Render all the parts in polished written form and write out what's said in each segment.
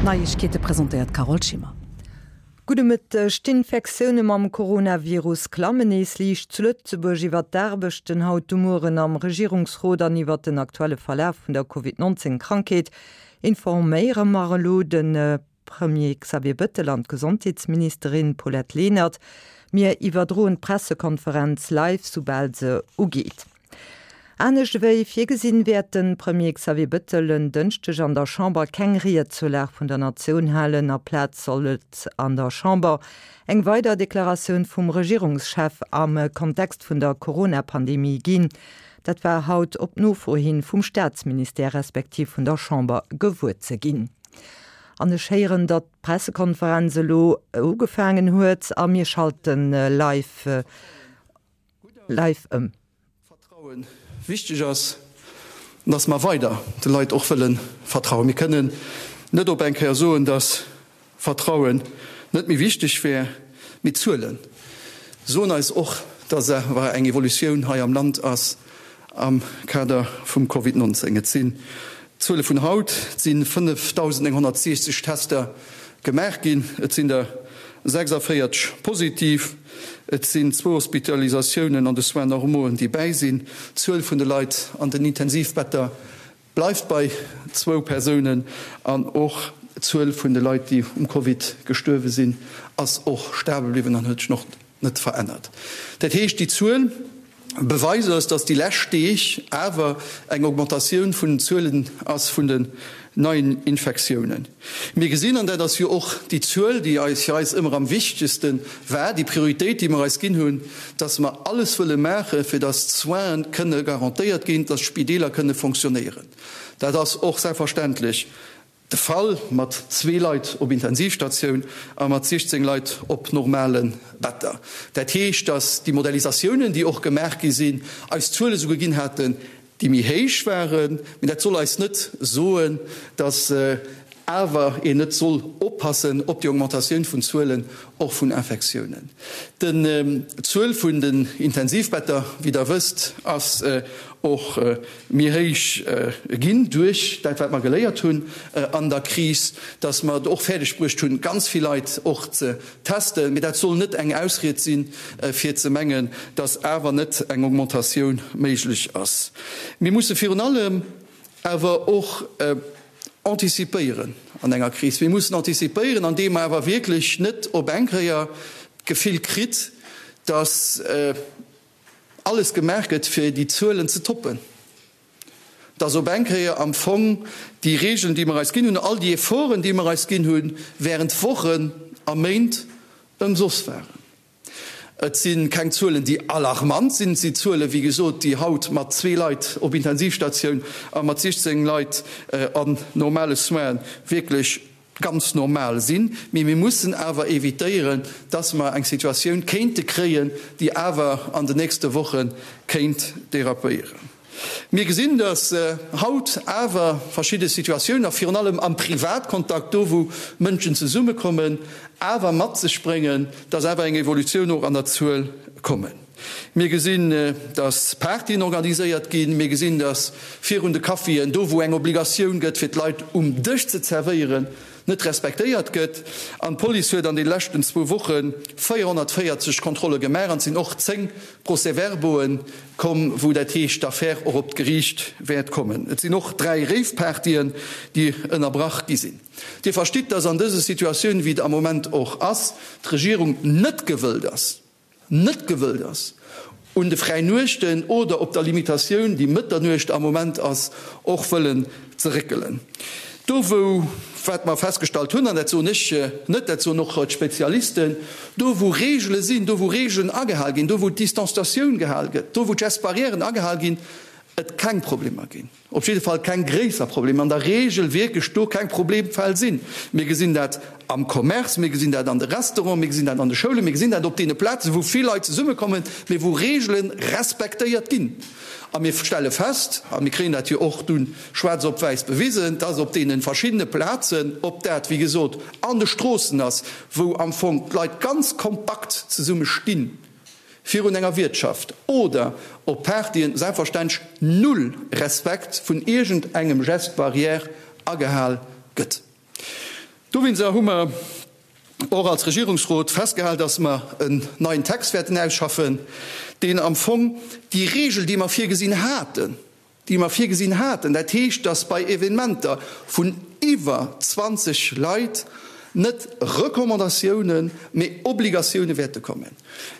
D'Neiegkeete presentéiert d'Carole Schimmer. Gudde Mëtteg. D'Infektioune mam Coronavirus klammen nees liicht zu Lëtzebuerg. Iwwer d'Aarbechten haut de Mueren am Regierungsrot an iwwer den aktuelle Verlaf vun der Covid 19 Krankheet informéiere mer elo de Premier Xavier Bëttel an d'Gesondheetsministerin Paulette Lenert. Mir iwwerdroen d'Pressekonferenz live, soubal se ugeet. Anescht ewéi virgesinn, wäert de Premier Xavier Bëttel en Dënschdeg an der Chamber keng Ried zur Lag vun der Natioun halen. Aplaz soll et an der Chamber eng weider Deklaratioun vum Regierungschef am Kontext vun der Corona-Pandemie ginn. Dat war haut op Nofro hin vum Staatsministère respektiv vun der Chamber gewuer ze ginn. An ech héieren, datt d'Pressekonferenz elo ugefaangen huet a mir schalte live live ëm. Vertrauen wichteg ass, an dass mer weider de Leit och wëlle vertrauen. Mir kënnen net op eng Kéier soen, dass Vertrauen net méi wichteg wär, mee d'Zuele soen eis och, dass awer eng Evolutioun hei am Land ass am Kader vum Covid 19. Et sinn d'Zuele vun haut, et si 5.960 Tester gemaach ginn, et sinn der 46 positiv, et sinn zwou Hospitalisatiounen an de Soins normauxen, déi bäi sinn. D'Zuel vun de Leit an den Intensivbetter bleift bei zwou Persounen an och d'Zuel vun de Leit, déi um Covid gestuerwe sinn, ass och stabel bliwwen an huet sech och net verännert. Dat heescht, déi Zuel beweist eis, dass déi lescht Deeg awer eng Augmentatioun vun den Zuelen ass vun den neien Infektiounen. Mir gesinn, an dat ass jo och déi Zuel, déi eis fir eis ëmmer am wichtegste war, déi Prioritéit, déi mer eis ginn hunn, dass mer alles wëlle maachen, fir dass d'Soinen kënne garantéiert ginn, dass d'Spideeler kënne fonctionnéieren. Dat ass och selbstverständlech de Fall mat zwee Leit op Intensivstatioun a mat 16 Leit op normale Better. Dat heescht, dass déi Modellisatiounen, déi och gemaach gi sinn, eis Zuele souguer ginn haten, déi méi héich waren. Mee dat soll eis net soen, dass awer een net soll oppassen op déi Augmentatioun vun Zuelen och vun Infektiounen. D'Zuel vun den Intensivbetter, wéi Der wësst, ass och méi héich ginn duerch dat, wat mer geléiert hunn an der Kris, dass mer et och fäerdeg bruecht hunn, ganz vill Leit och ze testen. Mee dat soll net eng Ausried sinn, fir ze mengen, dass awer net eng Augmentatioun méiglech ass. Mir musse virun allem awer och anticipéieren an enger Kris. Mir mussen anticipéieren, andeem mer awer wierklech net op eng Kéier d'Gefill kritt, dass alles gemaach gëtt, fir déi Zuelen ze toppen, dass op eng Kéier am Fong déi Regeln, déi mer eis ginn hunn, all déi Efforten, déi mer eis ginn hunn, während Wochen a Méint ëmsoss waren. Et si keng Zuelen, déi alarmant sinn. Et si Zuelen, wéi gesot, déi haut mat zwee Leit op Intensivstatioun a mat 16 Leit an normale Soinen wierklech ganz normal sinn. Mee mir mussen awer evitéieren, dass mer eng Situatioun kéinte kréien, déi awer an den nächste Woche kéint dérapéieren. Mir gesinn, dass haut awer verschidde Situatiounen, a virun allem am Privatkontakt, do wou Mënschen zesummekommen, awer mat sech bréngen, dass awer eng Evolutioun och an der Zuel kommen. Mir gesinn, dass Partyen organiséiert ginn. Mir gesinn, dass virun de Caféen, do wou eng Obligatioun gëtt, fir d'Leit um Dësch ze zerwéieren, net respektéiert gëtt. An d'Police huet an de leschten zwou Woche 440 Kontrolle gemaach an et sinn och 10 Procès-verbauen komm, wou dat heescht, d'Affär och op d'Geriicht wäert kommen. Et sinn och 3 Rave-Partyen, déi ënnerbrach gi sinn. Dir verstitt, dass an dëse Situatioun, wéi et am Moment och ass, d'Regierung net gewëllt ass, net gewëllt ass, un de Fräinuechten oder op der Limitatioun, déi Mëtternuecht am Moment ass, och wëllen ze réckelen. Do wou, wat mer festgestallt hunn, an dat soen ech net, dat soen och d'Spezialisten, do wou Regele sinn, do wou Regelen agehal ginn, do wou d'Distanzatioun gehal gëtt, do wou d'Gestes barrièren agehal ginn, et keng Problemer ginn. Op jidde Fall keng gréisser Problemer, an der Regel wierklech do keng Problemfäll sinn. Mir gesinn dat am Commerce, mir gesinn dat an de Restauranten, mir gesinn dat an de Schoulen, mir gesinn dat op deene Plazen, wou vill Leit zesummekommen, mee wou Regele respektéiert ginn. A mir stelle fest, a mir kréien dat jo och dunn schwaarz op wäiss bewisen, dass op deene verschiddene Plazen, ob dat, wéi gesot, an de Stroossen ass, wou am Fong d'Leit ganz kompakt zesumme stinn, virun enger Wiertschaft oder op Partyen selbstverständlech null Respekt vun iergend engem Geste barrière agehal gëtt. Dowéinster hu mer och als Regierungsrot festgehal, dass mer en neien Text wäerten ausschaffen, deen am Fong déi Regel, déi mer virgesinn haten, déi mer virgesinn haten, dat heescht, dass bei Evenementer vun iwwer 20 Leit net Recommandatiounen, mee Obligatioune wäerte kommen.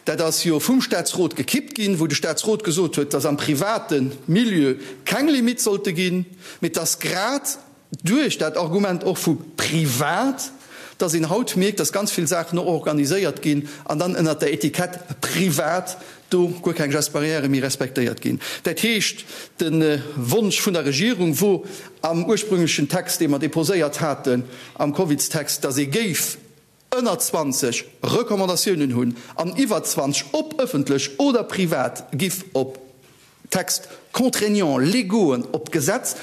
Dat ass jo vum Statsrot gekippt ginn, wou de Statsrot gesot huet, dass am private Milieu keng Limitt sollte ginn, mee dass grad duerch dat Argument och vu privat, dass een haut mierkt, dass ganz vill Saachen och organiséiert ginn an dann ënnert der Etikett privat do guer keng Gestes barrières méi respektéiert ginn. Dat heescht, de Wonsch vun der Regierung wor am ursprünglechen Text, dee mer déposéiert haten am Covidstext, dass ee géif ënner 20 Recommandatiounen hunn an iwwer 20, ob ëffentlech oder privat, giff op Textes contraignants légauxen, op d'Gesetz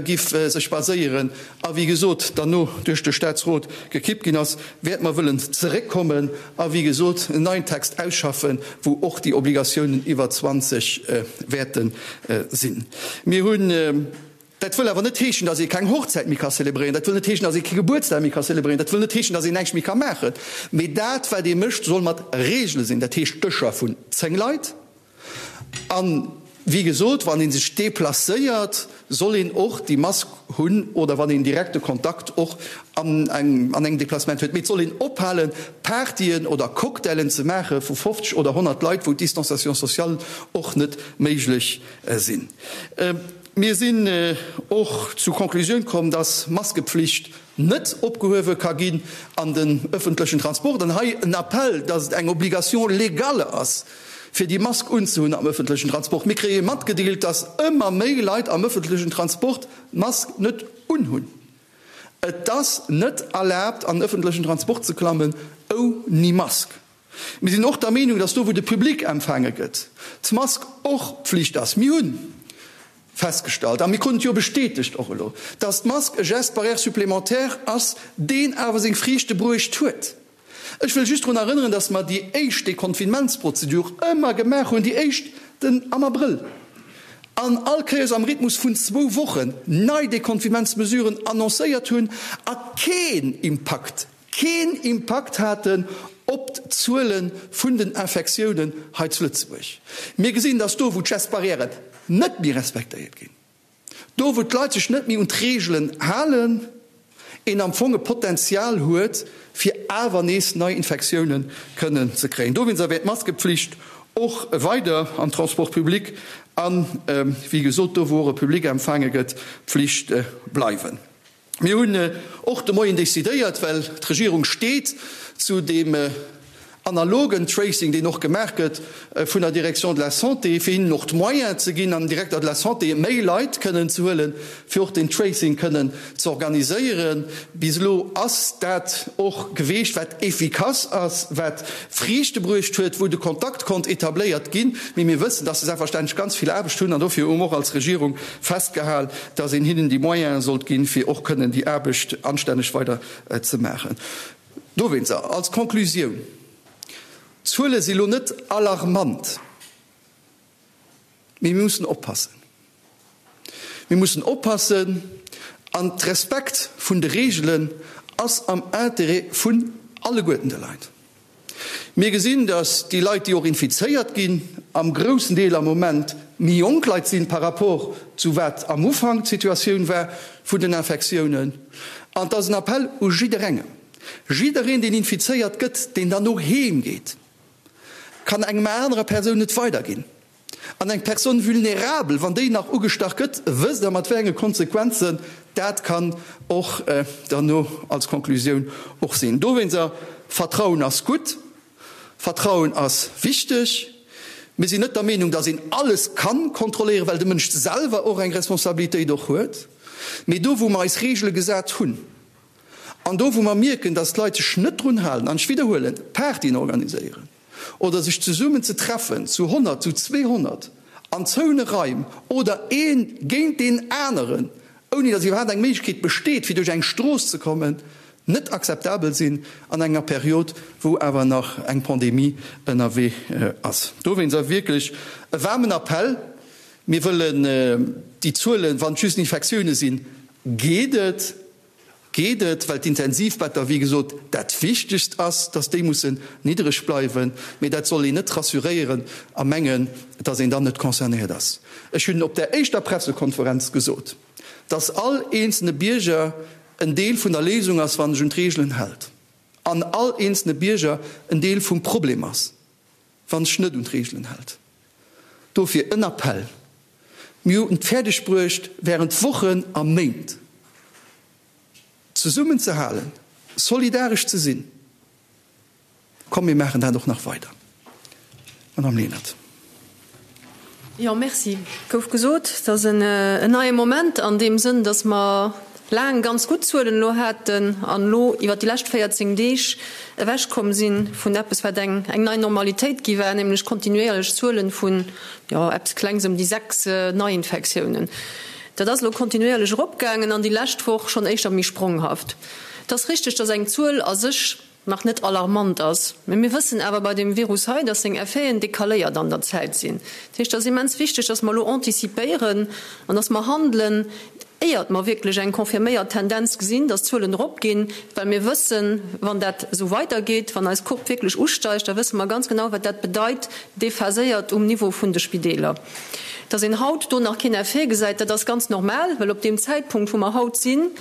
giff sech baséieren a wéi gesot derno duerch de Staatsrot gekippt ginn ass, wäerte mer wëllen zeréckkommen a wéi gesot en neien Text ausschaffen, wou och déi Obligatiounen iwwer 20 wäerte sinn. Mir hunn. Dat wëll awer net heeschen, dass ee keng Hochzäit méi ka zelebréieren, dat wëll net heeschen, dass ee kee Gebuertsdag méi ka zelebréieren, dat wëll net heeschen, dass een näischt méi ka maachen. Mee dat, wat ee mécht, soll mat Regele sinn, dat heescht Dëscher vun 10 Leit. A wéi gesot, wann ee sech deplacéiert, soll een och déi Mask hunn oder wann een direkte Kontakt och an engem Deplacement huet. Mee et soll een ophalen, Partyen oder Cocktailen ze maache vu 50 oder 100 Leit, wou d'Distanciation sociale och net méiglech sinn. Mir sinn och zu Conclusioun komm, dass Maskepflicht net opgehuewe ka ginn an den öffentlechen Transport. An hei en Appell, dass et eng Obligation légale ass, fir déi Mask unzehunn am öffentlechen Transport. Mir kréie matgedeelt, dass ëmmer méi Leit am öffentlechen Transport d'Mask net unhunn. Et ass net erlaabt, an den öffentlechen Transport ze klammen ouni Mask. Mir sinn och der Meenung, dass do, wou de Public empfaange gëtt, d'Mask och Pflicht ass. Mir hu festgestallt, a mir kruten et jo bestätegt och elo, dass d'Mask e Geste barrière supplémentaire ass, deen awer seng Friichte bruecht huet. Ech wëll just drun erënneren, dass mer déi éischt Deconfinementsprozedur ëmmer gemaach hunn, déi éischt den am Abrëll, an all Kéiers am Rhythmus vun zwou Wochen nei Deconfinementsmesuren annoncéiert hunn a keen Impakt keen Impakt haten op d'Zuele vun den Infektiounen hei zu Lëtzebuerg. Mir gesinn, dass do, wou d'Gestes barrières net méi respektéiert ginn, do, wou d'Leit sech net méi un d'Reegelen halen, een am Fong e Potenzial huet, fir awer nees nei Infektiounen kënnen ze kréien. Dowéinster wäert d'Maskepflicht och weider am Transport public an, wéi gesot, do, wou och e Public empfaange gëtt, Pflicht bleiwen. Mir hunn och de Moien decidéiert, well d'Regierung steet zu deem analogen Tracing, deen och gemaach gëtt vun der Direction de la Santé, fir hinnen och d'Moyens ze ginn, an Directeur de la Santé méi Leit kënnen ze huelen, fir och deen Tracing kënnen ze organiséieren. Bis elo ass dat och geweecht, wat efficace ass, wat Friichte bruecht huet, wou de Kontakt konnt etabléiert ginn. Mee mir wëssen, dass se selbstverständlech ganz vill Aarbecht hunn an dofir hu mer och als Regierung festgehal, dass een hinnen déi Moyene sollt ginn, fir och kënnen déi Aarbecht anstänneg weider ze maachen. Dowéinster als Conclusioun, D'Zuele si lo net alarmant, mee mir mussen oppassen. Mir mussen oppassen an d'Respekt vun de Reegelen ass am Interêt vun alleguerten de Leit. Mir gesinn, datt déi Leit, déi och infizéiert ginn, am groussen Deel am Moment méi jonk Leit sinn par rapport zu wat am Ufank d'Situatioun war vun den Infektiounen. An et ass en Appell u jidderengem, Jiddereen, deen infizéiert gëtt, deen dann no heem geet, kann engem anerer Persoun et weiderginn. An eng Personne vulnérable, wann déi nach ugestach gëtt, wësst Der, mat wéi enge Konsequenzen dat kann och derno als Konklusioun och sinn. Dowéinster, Vertrauen ass gutt, Vertrauen ass wichteg. Mir sinn net der Meenung, dass een alles kann kontrolléieren, well de Mënsch selwer och eng Responsabilitéit och huet. Mee do, wou mer eis Regele gesat hunn an do, wou mer mierken, dass d'Leit sech net drun halen, an ech widderhuelen, Partyen organiséieren, oder sech zesummen ze treffen zu 100, zu 200 an zoune Raim oder ee géint deen aneren, ouni datt iwwerhaapt eng Méiglechkeet besteet, fir duerch eng Strooss ze kommen, net akzeptabel sinn an enger Period, wou awer nach eng Pandemie ënnerwee ass. Dowéinst awer wierklech e waarmen Appell, Mir wëllen déi Zuelen, wann et just Infektioune sinn, geet et. Geet et, well d'Intensivbetter, wéi gesot, dat Wichtegst ass, dass déi mussen niddreg bleiwen. Mee dat soll een net rassuréieren a mengen, dass een dann net concernéiert ass. Ech hunn op där éischter Pressekonferenz gesot, dass all eenzelne Bierger en Deel vun der Léisung ass, wann sech un d'Reegelen hält, an all eenzelne Bierger en Deel vum Problem ass, wann sech net un d'Reegelen hält. Dofir en Appell, Mir hunn et fäerdeg bruecht, während Wochen a Méint zesummen ze halen, solidaresch ze sinn. Komm, mir maachen dat och nach weider. Madame Lenert. Jo, merci. Et gouf gesot, et ass en neie Moment an deem Sënn, datt mer laang ganz gutt Zuelen elo haten an elo iwwert déi lescht 14 Deeg ewechkomm si vun eppes, wat eng nei Normalitéit gi war, nämlech kontinuéierlech Zuelen vun, jo, eppes Klengs ëm déi 6 Neiinfektiounen. Dat ass elo kontinuéierlech eropgaangen an déi lescht Woch schonn éischter méi spronghaft. Et ass richteg, datt eng Zuel a sech nach net alarmant ass. Mä mir wëssen awer bei deem Virus hei, dass seng Effeten decaléiert an der Zäit sinn. Dat heescht, et ass immens wichteg, dass mer elo antizipéieren an dass mer handelen, éiert mer wierklech eng confirméiert Tendenz gesinn, dass d'Zuelen eropginn, well mir wëssen, wann dat esou weidergeet, wann eis Courbe wierklech usteigt, da wësse mer ganz genau, wat dat bedeit, déphaséiert um Niveau vun de Spideeler. Dass een haut do nach keen Effet gesäit, dat ass ganz normal, well op deem Zäitpunkt, wou mer haut sinn,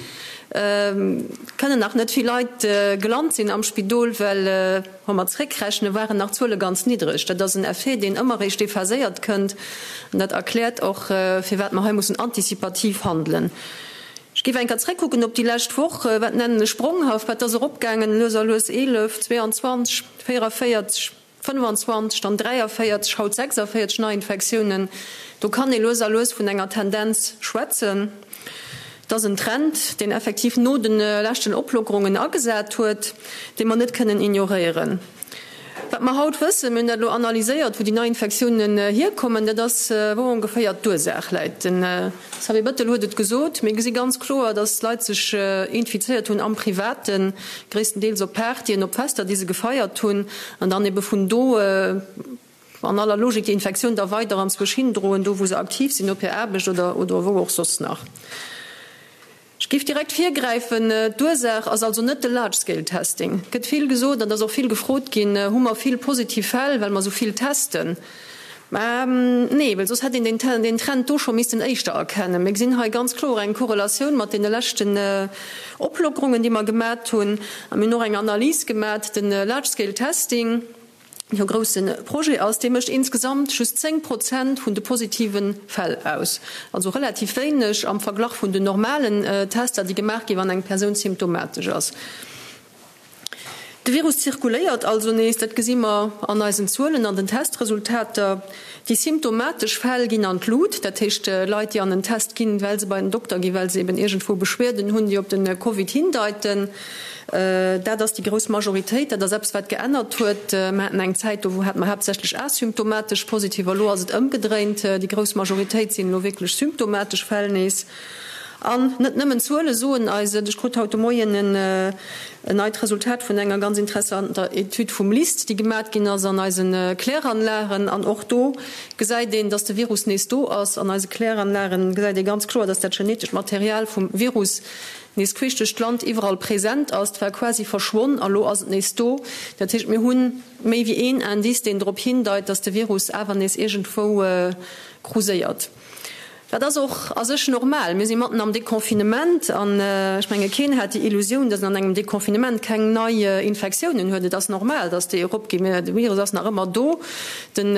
kënnen nach net vill Leit gelant sinn am Spidol, well wa mer zréckrechnen, waren nach d'Zuele ganz niddreg. Dat ass en Effet, deen ëmmer eréischt déphaséiert kënnt an dat erkläert och, firwat mer hei mussen antizipativ handelen. Ech géif eng Kéier zréckkucken op déi lescht Woch. Wat nennen ech spronghaft? Wat ass eropgaangen lues a lues? 11, 22, 44. 25, dann 43, haut 46 Neiinfektiounen. Do kann ee lues a lues vun enger Tendenz schwätzen. Et ass en Trend, deen effektiv no de leschten Oplockerungen agesat huet, dee mer net kënnen ignoréieren. Wat mer haut wëssen, mir hunn dat elo analyséiert, wou déi Neiinfektiounen hierkommen, dat ass, wou ongeféier d'Ursaach läit. Den Xavier Bettel huet et gesot, mir gesi ganz kloer, datt d'Leit sech infizéiert hunn am Privaten, gréisstendeels op Partyen, op Fester, déi se gefeiert hunn, an dann ebe vun do an aller Logik déi Infektioun da weider anzwousch hindroen, do wou se aktiv sinn, op hir Aarbecht oder oder wou och soss nach. Ech géif direkt virgräifen, D'Ursaach ass also net de Large-Scale-Testing. Et gëtt vill gesot an et ass och vill gefrot ginn, Hu mer vill positiv Fäll, well mer esou vill testen? Mä nee, well soss hätt een deen Trend do scho missten éischter erkennen. Mir gesinn hei ganz kloer eng Korrelatioun mat deene leschten Oplockerungen, déi mer gemat hunn. A mir hunn och eng Analys gemat, de Large-Scale-Testing, deen e grousse Projet ass, dee mécht insgesamt just 10 Prozent vun de positive Fäll aus. Also relativ wéineg am Verglach vun den normalen Tester, déi gemaach ginn, wann eng Persoun symptomatesch ass. De Virus zirkuléiert also nees, dat gesi mer an eisen Zuelen, an den Testresultater. Déi symptomatesch Fäll ginn an d'Lut, dat heescht Leit, déi an en Test ginn, well se bei den Dokter ginn, well se eben iergendwou Beschwerden hunn, déi op de Covid hindeiten. Dat ass déi grouss Majoritéit. Dat ass eppes, wat geännert huet. Mer haten eng Zäit, do hate mer haaptsächlech asymptomatesch Positiver. Elo ass et ëmgedréint, déi grouss Majoritéit sinn elo wierklech symptomatesch Fäll nees. An net nëmmen d'Zuele soen eis et. Ech krut haut de Moien en neit Resultat vun enger ganz interessanter Etüd vum LIST, déi gemat ginn ass an eise Kläranlagen. An och do gesäit een, dass de Virus nees do ass. An eise Kläranlagen gesäit ee ganz kloer, dass dat genetescht Material vum Virus nees queesch duerch d'Land iwwerall present ass. Et war quasi verschwonn a lo ass et nees do. Dat heescht, mir hu méi wéi een Indice, deen drop hindeit, dass de Virus awer nees iergendwou kruséiert. Dat ass och a sech normal. Mir si matten am Deconfinement an ech menge keen hat déi Illusioun, datt een an engem Deconfinement keng nei Infektiounen huet. Et ass normal, datt déi eropginn. Mä de Virus ass nach ëmmer do. Den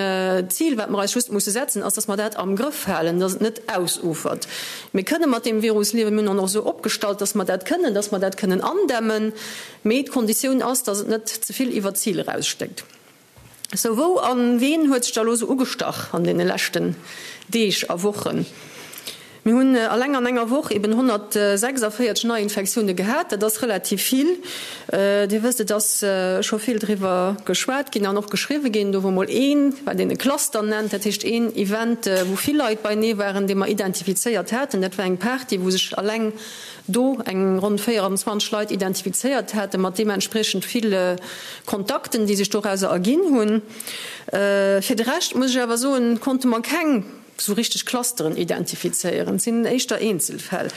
Zil, wat mer eis just musse setzen, ass, datt mer dat am Grëff halen, datt et net ausufert. Mir kënne mat deem Virus liewen. Mir hunn en och esou opgestallt, datt mer dat kënnen, datt mer dat kënnen andämmen. Mee d'Konditioun ass, datt et net ze vill iwwer d'Zil erausstéckt. Sou, wou a ween huet sech da lo sou ugestach an deene leschten Deeg a Wochen? Mir hunn alleng an enger Woch eben 146 Neiinfektioune gehat, dat ass relativ vill. Dir wësst, et ass scho vill driwwer geschwat ginn an och geschriwwe ginn. Do wor mol een, wat een e Cluster nennt, dat heescht een Event, wou vill Leit beinee waren, dee mer identifizéiert haten. Dat war eng Party, wou sech alleng do eng ronn 24 Leit identifizéiert haten, mat deementspriechend vill Kontakten, déi sech dorauser erginn hunn. Fir de Rescht muss ech awer soen, konnte mer keng. Esou richteg Clusteren identifizéieren. Et sinn éischter Eenzelfäll.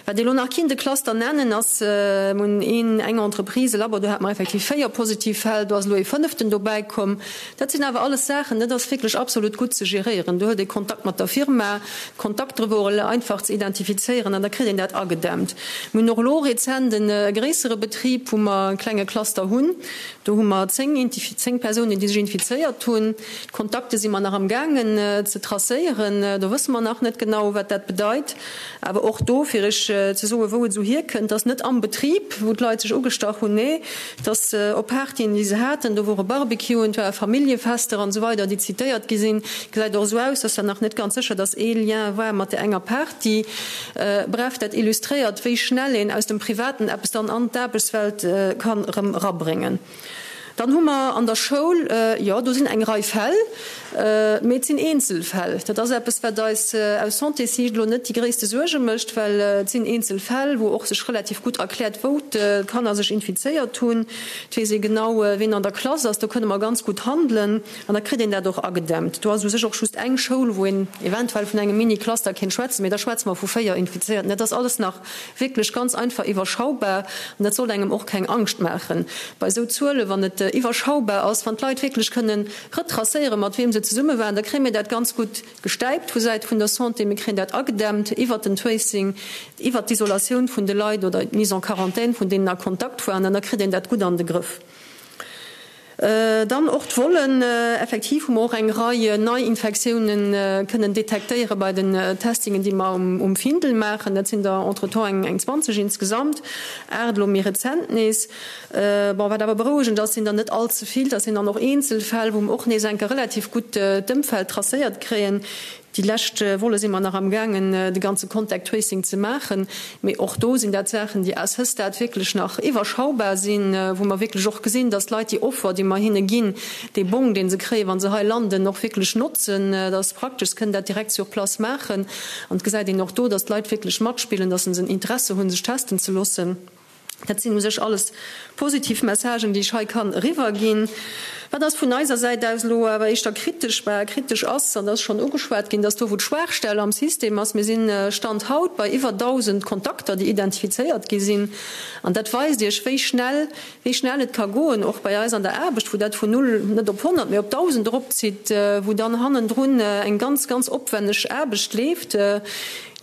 Wat ee lo nach kinnt e Cluster nennen, ass, mir hunn een, eng Entreprise, e Labo, do hate mer effektiv 4 positiv Fäll, do ass elo ee fënneften dobäi komm. Dat sinn awer alles Saachen, dat ass wierklech absolut gutt ze geréieren. Do huet ee Kontakt mat der Firma, d'Kontaktere wore einfach ze identifizéieren an da kritt een dat agedämmt. Mir hunn och elo rezent e gréissere Betrib, wou mer e klenge Cluster hunn. Do hu mer 10, 10 Persounen, déi sech infizéiert hunn. D'Kontakte si mer nach am gaangen ze tracéieren. Do wësse mer nach net genau, wat dat bedeit. Awer och do, fir Iech ze soen, wou et esou hierkënnt, dass net am Betrib, wou d'Leit sech ugestach hunn, nee, dass op Partyen, déi se haten, do wore Barbecuen, et ware Familljefester an esou weider, déi zitéiert gi sinn. Gesäit och esou aus, dass dat nach net ganz sécher, dass ee Lien war mat där enger Party. Bref, dat illustréiert, wéi schnell een aus dem Privaten eppes dann an d'Aarbechtswelt kann erëm erabréngen. Dann hu mer an der Schoul, jo, do sinn eng Rei Fäll, mee et sinn Eenzelfäll. Dat ass eppes, wat eis aus Santéssiicht elo net déi gréisste Suerge mécht, well et sinn Eenzelfäll, wou och sech relativ gutt erkläert, wou d'Kanner sech infizéiert hunn. Et weess ee genau, ween an der Klass ass. Do kënne mer ganz gutt handelen an da kritt een dat och agedämmt. Do ass u sech och just eng Schoul, wou een eventuell vun engem Mini-Cluster kéint schwätzen, mee da schwätze mer vu 4 Infizéierten. Dat ass alles nach Wierklech ganz einfach iwwerschaubar an dat sollt engem och keng Angscht maachen bei esou Zuelen, wann et iwwerschaubar ass, wann d'Leit wierklech kënnen retracéieren, mat wiem se zesumme waren, da kréie mir dat ganz gutt gestäipt vu Säit vun der Santé. Mir kréien dat agedämmt iwwert den Tracing, iwwert d'Isolatioun vun de Leit oder d'Mise en quarantaine vun deenen a Kontakt waren an da kritt een dat gutt an de Grëff. Dann och d'Vollen. Effektiv hu mer och eng Rei Neiinfektiounen kënnen detektéiere bei den Testingen, déi mer um Findel maachen. Dat sinn der entretemps eng 20 insgesamt, 8 elo méi rezent nees. Bon, wat awer berouegend ass, sinn der net all ze vill. Dat sinn dann och Eenzelfäll, wou mer och nees enke relativ gutt d'Ëmfeld tracéiert kréien. Déi lescht Wolle si mer nach am gaangen de ganze Contact Tracing ze maachen, mee och do sinn dat Saachen, déi à ce stade wierklech nach iwwerschaubar sinn, wou mer wierklech och gesinn, dass d'Leit déi Offer, déi mer hinne ginn, dee Bong, dee se kréien, wa se hei landen, och wierklech notzen. Dat ass praktesch, se kënnen dat direkt sur place maachen an et gesäit een och do, dass d'Leit wierklech matspillen, dass se en Interesse hunn, sech testen ze loossen. Dat sinn u sech alles positiv Messagen, déi ech hei kann eriwwerginn. Wat ass vun eiser Säit aus elo awer éischter kritesch? Bah, kritesch ass, an dat ass schonn ugeschwat ginn, dass do, wou d'Schwaachstell am System ass, mir sinn Stand haut bei iwwer 1.000 Kontakter, déi identifizéiert gi sinn, an dat weist Iech, wéi schnell, wéi schnell et ka goen, och bei eis an der Aarbecht, wou dat vun null net op 100, mee op 1.000 eropzitt, wou dann hannendrun eng ganz, ganz opwenneg Aarbecht leeft.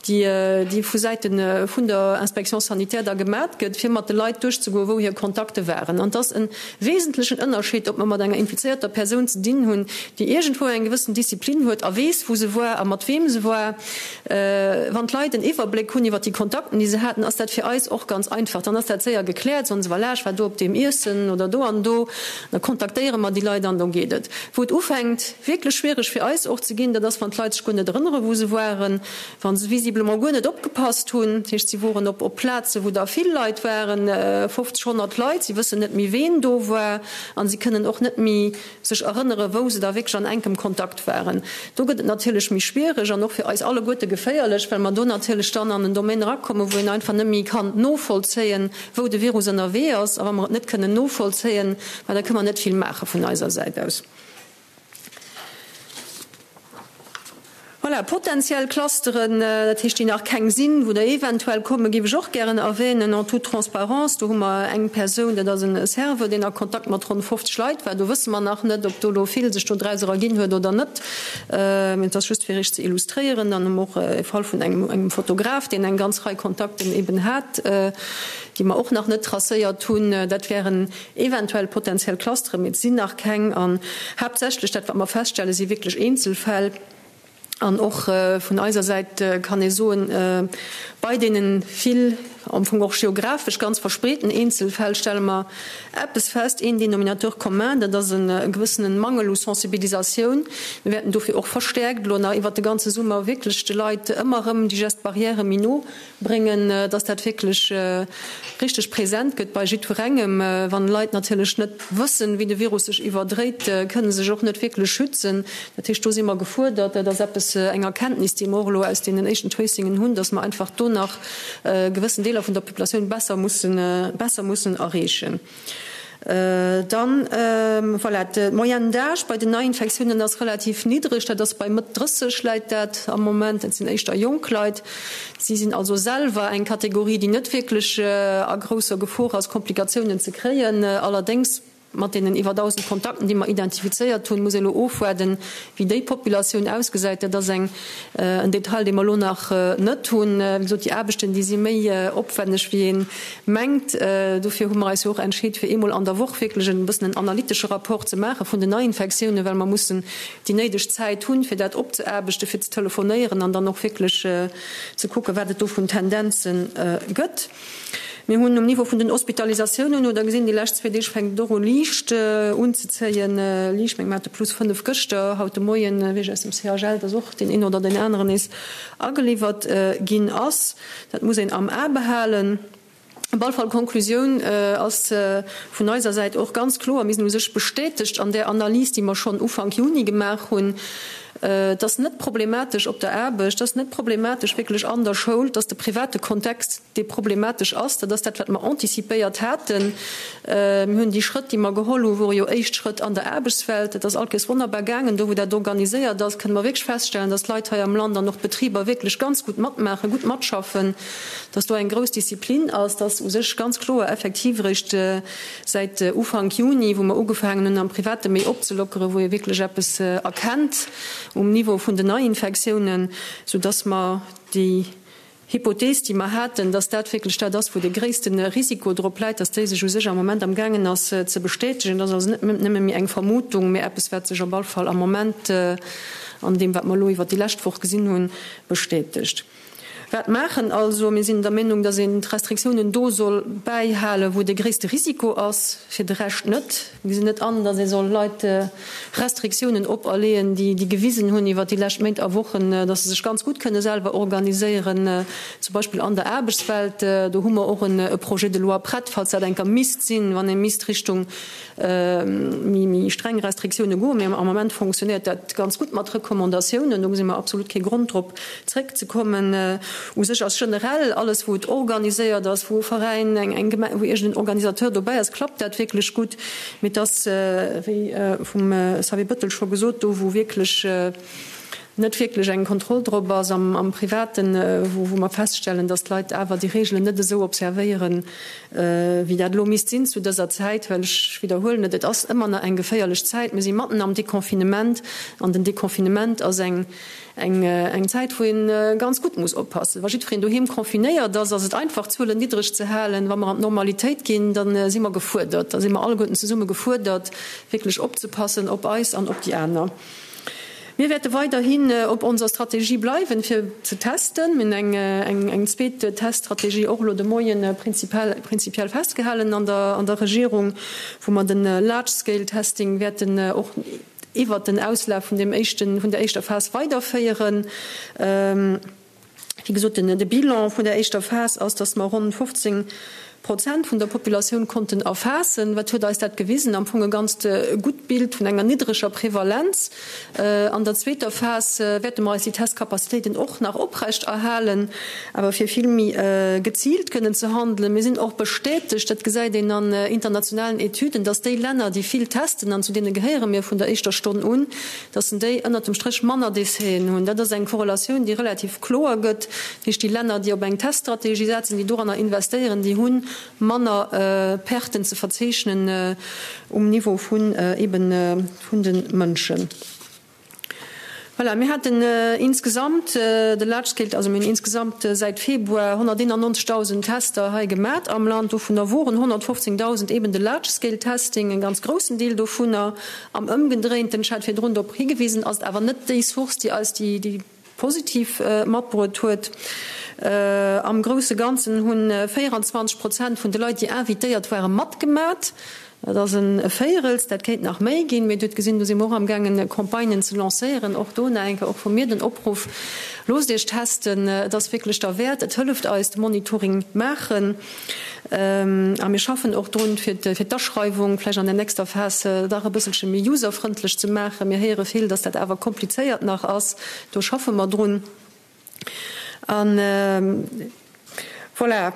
déi vu Säite vun der Inspection sanitaire da gemat gëtt, fir mat de Leit duerchzegoen, wou hir Kontakte waren. An et ass e wesentlechen Ënnerscheed, ob mer mat enger infizéierter Persoun ze dinn hunn, déi iergendwou eng gewëssen Disziplin huet a weess, wou se war a mat weem se war. Wann d'Leit en Iwwerbléck hunn iwwer déi Kontakten, déi se haten, ass dat fir eis och ganz einfach. Dann ass dat séier gekläert, soen se, voilà, ech war do op deem Iessen oder do an do. Da kontaktéiere mer déi Leit an da geet et. Wou et ufänkt wierklech schwiereg fir eis och ze ginn, dat ass, wann d'Leit sech guer net erënnere wou se waren, wa se visiblement guer net opgepasst hunn. Dat heescht, si woren op op Plaze wou da vill Leit waren, 50, 100 Leit, si wëssen net méi ween do war a si kënnen och net méi sech erënnere wou se da wierklech an enkem Kontakt waren. Do gëtt et natierlech méi schwiereg an och fir eis alleguerte geféierlech, well mer do natierlech dann an en Domaine erakommen, wou een einfach net méi kann novollzéien, wou de Virus ënnerwee ass, a wa mer et net kënnen novollzéien, ma da kënne mer net vill maache vun eiser Säit aus. Voilà, potenziell Clusteren, dat heescht, déi nach keng sinn, wou der eventuell kommen, géif ech och gären erwähnen, en toute transparence, do hu mer eng Persoun, dat ass e Serveur, deen a Kontakt mat ronn 50 Leit war. Do wësse mer nach net, ob do elo vill sech do draus eraginn huet oder net. Mee et ass just, fir Iech ze illustréieren. Dann hu mer och e Fall vun engem Fotograf, deen eng ganz Rei Kontakten eben hat, déi mer och nach net tracéiert hunn. Dat wären eventuell potenziell Clusteren, mee et sinn nach keng. An haaptsächlech dat, wat mer feststellen, si wierklech Eenzelfäll. An och vun eiser Säit kann ee soen, bei deene vill, am Fong och geographesch ganz verspreeten Eenzelfäll stelle mer eppes fest, een Dénominateur commun, dat ass e gewëssene Mangel u Sensibilisatioun. Mir wäerten dofir och verstäerkt elo nach iwwert de ganze Summer wierklech de Leit ëmmer erëm déi Gestes barrières méi no bréngen, dass dat wierklech richteg present gëtt bei jiddwerengem. Wann Leit natierlech net wëssen, wéi de Virus sech iwwerdréit, kënne se sech och net wierklech schützen. Dat heescht, do si mer gefuerdert. Dat ass eppes, eng Erkenntnis, déi mer och elo aus deenen éischten Tracingen hunn, dass mer einfach do nach gewëssen Deeler vun der Populatioun besser mussen, besser mussen erreechen. Dann, voilà, d'Moyenne d'âge bei den Neiinfektiounen ass relativ niddreg, dat ass bei Mëtt 30 läit dat am Moment. Dat sinn éischter jonk Leit. Si sinn also selwer eng Kategorie, déi net wierklech a grousser Gefor ass, Komplikatiounen ze kréien. Allerdéngs, mat deenen iwwer 1.000 Kontakten, déi mer identifizéiert hunn, muss ee elo ofwaarden, wéi déi Populatioun ausgesäit. Dat ass eng en Detail, dee mer elo nach net hunn. Wéi gesot, déi Aarbechten, déi si méi opwenneg, wéi ee mengt. Dofir hu mer eis jo och entscheet, fir eemol an der Woch wierklech e bëssen en analytesche Rapport ze maache vun den Neiinfektiounen, well mer mussen déi néideg Zäit hunn, fir dat opzeaarbechten, fir ze telefonéieren an dann och wierklech ze kucken, wat et do vun Tendenze gëtt. Mir hunn um Niveau vun den Hospitalisatiounen, hutt Der gesinn, déi lescht zwee Deeg fänkt et och u liicht unzezéien, liicht, meng mer hate plus 5 gëschter, haut de Moien weess ech aus dem CHL, dass och deen een oder deen aneren nees ageliwwert ginn ass. Dat muss een am A behalen. Op alle Fall, d'Konklusioun ass vun eiser Säit och ganz kloer, Mir sinn u sech bestätegt an där Analys, déi mer schonn Ufank Juni gemaach hunn, Et ass net problematesch op der Aarbecht, et ass net problematesch wierklech an der Schoul, et ass de private Kontext, dee problematesch ass. Dat ass dat, wat mer anticipéiert haten. Mir hunn déi Schrëtt, déi mer geholl hunn, wore jo éischt Schrëtt an der Aarbechtswelt. Et ass all Kéiers wonnerbar gaangen. Do, wou dat organiséiert ass, kënne mer wierklech feststellen, dass d'Leit hei am Land an och d'Betriber wierklech ganz gutt matmaachen, gutt matschaffen, dass do eng grouss Disziplin ass, dass u sech ganz kloer effektiv eréischt Säit Ufank Juni, wou mer ugefaangen hunn am Private méi opzelockeren, wou ee wierklech eppes erkennt um Niveau vun den Neiinfektiounen, soudass mer déi Hypothees, déi mer haten, dass dat wierklech dat ass, wou de gréisste Risiko drop läit, dass déi sech u sech am Moment amgaangen ass ze bestätegen. Dat ass also net nëmme méi eng Vermutung, mä eppes, wat sech op all Fall am Moment an deem, wat mer elo iwwert déi lescht Woch gesinn hunn, bestätegt. Wat maachen also? Mir sinn der Meenung, dass een d'Restriktiounen do soll bäihalen, wou de gréisste Risiko ass, fir de Rescht net. Mir gesinn net an, dass ee soll Leit Restriktiounen operleeën, déi gewisen hunn iwwert déi lescht Méint a Wochen, dass se sech ganz gutt kënne selwer organiséieren, zum Beispill an der Aarbechtswelt. Do hu mer och e Projet de loi prett, falls dat eng Kéier misst sinn, wann ee misst Richtung méi streng Restriktioune goen. Mee am Moment fonctionnéiert dat ganz gutt mat Recommandatiounen. Do gesi mer absolut kee Grond drop zréckzekommen. U sech ass generell alles, wou et organiséiert ass, wou e Veräin, eng Gemeng, wou iergend en Organisateur dobäi ass, klappt dat wierklech gutt. Mee et ass, wéi vum Xavier Bettel scho gesot, do wou wierklech net wierklech eng Kontroll drop ass am Privaten, wou mer feststellen, datt d'Leit awer déi Reegelen net esou observéieren, wéi dat elo misst sinn zu dëser Zäit, well ech widderhuelen et, et ass ëmmer nach eng geféierlech Zäit. Mir si matten am Deconfinement an den Deconfinement ass eng eng Zäit, wou ee ganz gutt muss oppassen. Wa jiddwereen doheem confinéiert ass, ass et einfach, d'Zuelen niddreg ze halen. Wa mer an d'Normalitéit ginn, da si mer gefuerdert, da si mer alleguerten zesumme gefuerdert, wierklech opzepassen op eis an op déi aner. Mir wäerte weiderhin op onser Strategie bleiwen, fir ze testen. Mir hunn eng zweet Teststrategie och elo de Moien prinzipiell festgehalen an der Regierung, wou mer de Large-Scale-Testing wäerten och iwwert den Auslaf vun deem éischten, vun der éischter Phas weiderféieren. Wéi gesot, de Bilan vun der éischter Phas ass, dass mer ronn 15 Prozent vun der Populatioun konnten erfaassen. Wat huet eis dat gewisen? Am Fong e ganzt gutt Bild vun enger niddreger Prevalenz. An der zweeter Phas wäerte mer eis déi Testcapacitéiten och nach oprecht erhalen, awer fir vill méi geziilt kënnen ze handelen. Mir sinn och bestätegt, dat gesäit een an internationalen Etüden, dass déi Länner, déi vill testen, an zu deene gehéiere mir vun der éischter Stonn un, dass en déi ënnert dem Stréch manner Décèsen hunn. Dat ass eng Korrelatioun, déi relativ kloer gëtt. Dat heescht, déi Länner, déi op eng Teststrategie setzen, déi doranner investéieren, déi hu manner Perten ze verzeechnen um Niveau vun eben vun de Mënschen. Voilà, mir haten insgesamt, de Large Scale, also mir hunn insgesamt säit Februar 191.000 Tester hei gemat am Land. Dovunner woren 115.000 eben de Large Scale Testing, e ganz groussen Deel dovunner. Am Ëmgedréinten, ech hat virdrun drop higewisen, ass et awer net déi Source, déi eis déi positiv matbruet huet. Am grousse Ganzen hu 24 Prozent vun de Leit, déi invitéiert waren, matgemat. Dat ass e Véierels, dat kéint nach méi ginn. Mee Dir hutt gesinn, do si mer och amgaangen, Campagnen ze lancéieren. Och do nach eng Kéier och vu mir den Opruff, Loosst Iech testen, et ass wierklech derwäert, et hëlleft eis, de Monitoring maachen. A mir schaffen och drun, fir d'Aschreiwung vläicht an der nächster Phas dach e bësselche méi userfrëndlech ze maachen. Mir héiere vill, dass dat awer komplizéiert nach ass. Do schaffe mer drun. A voilà.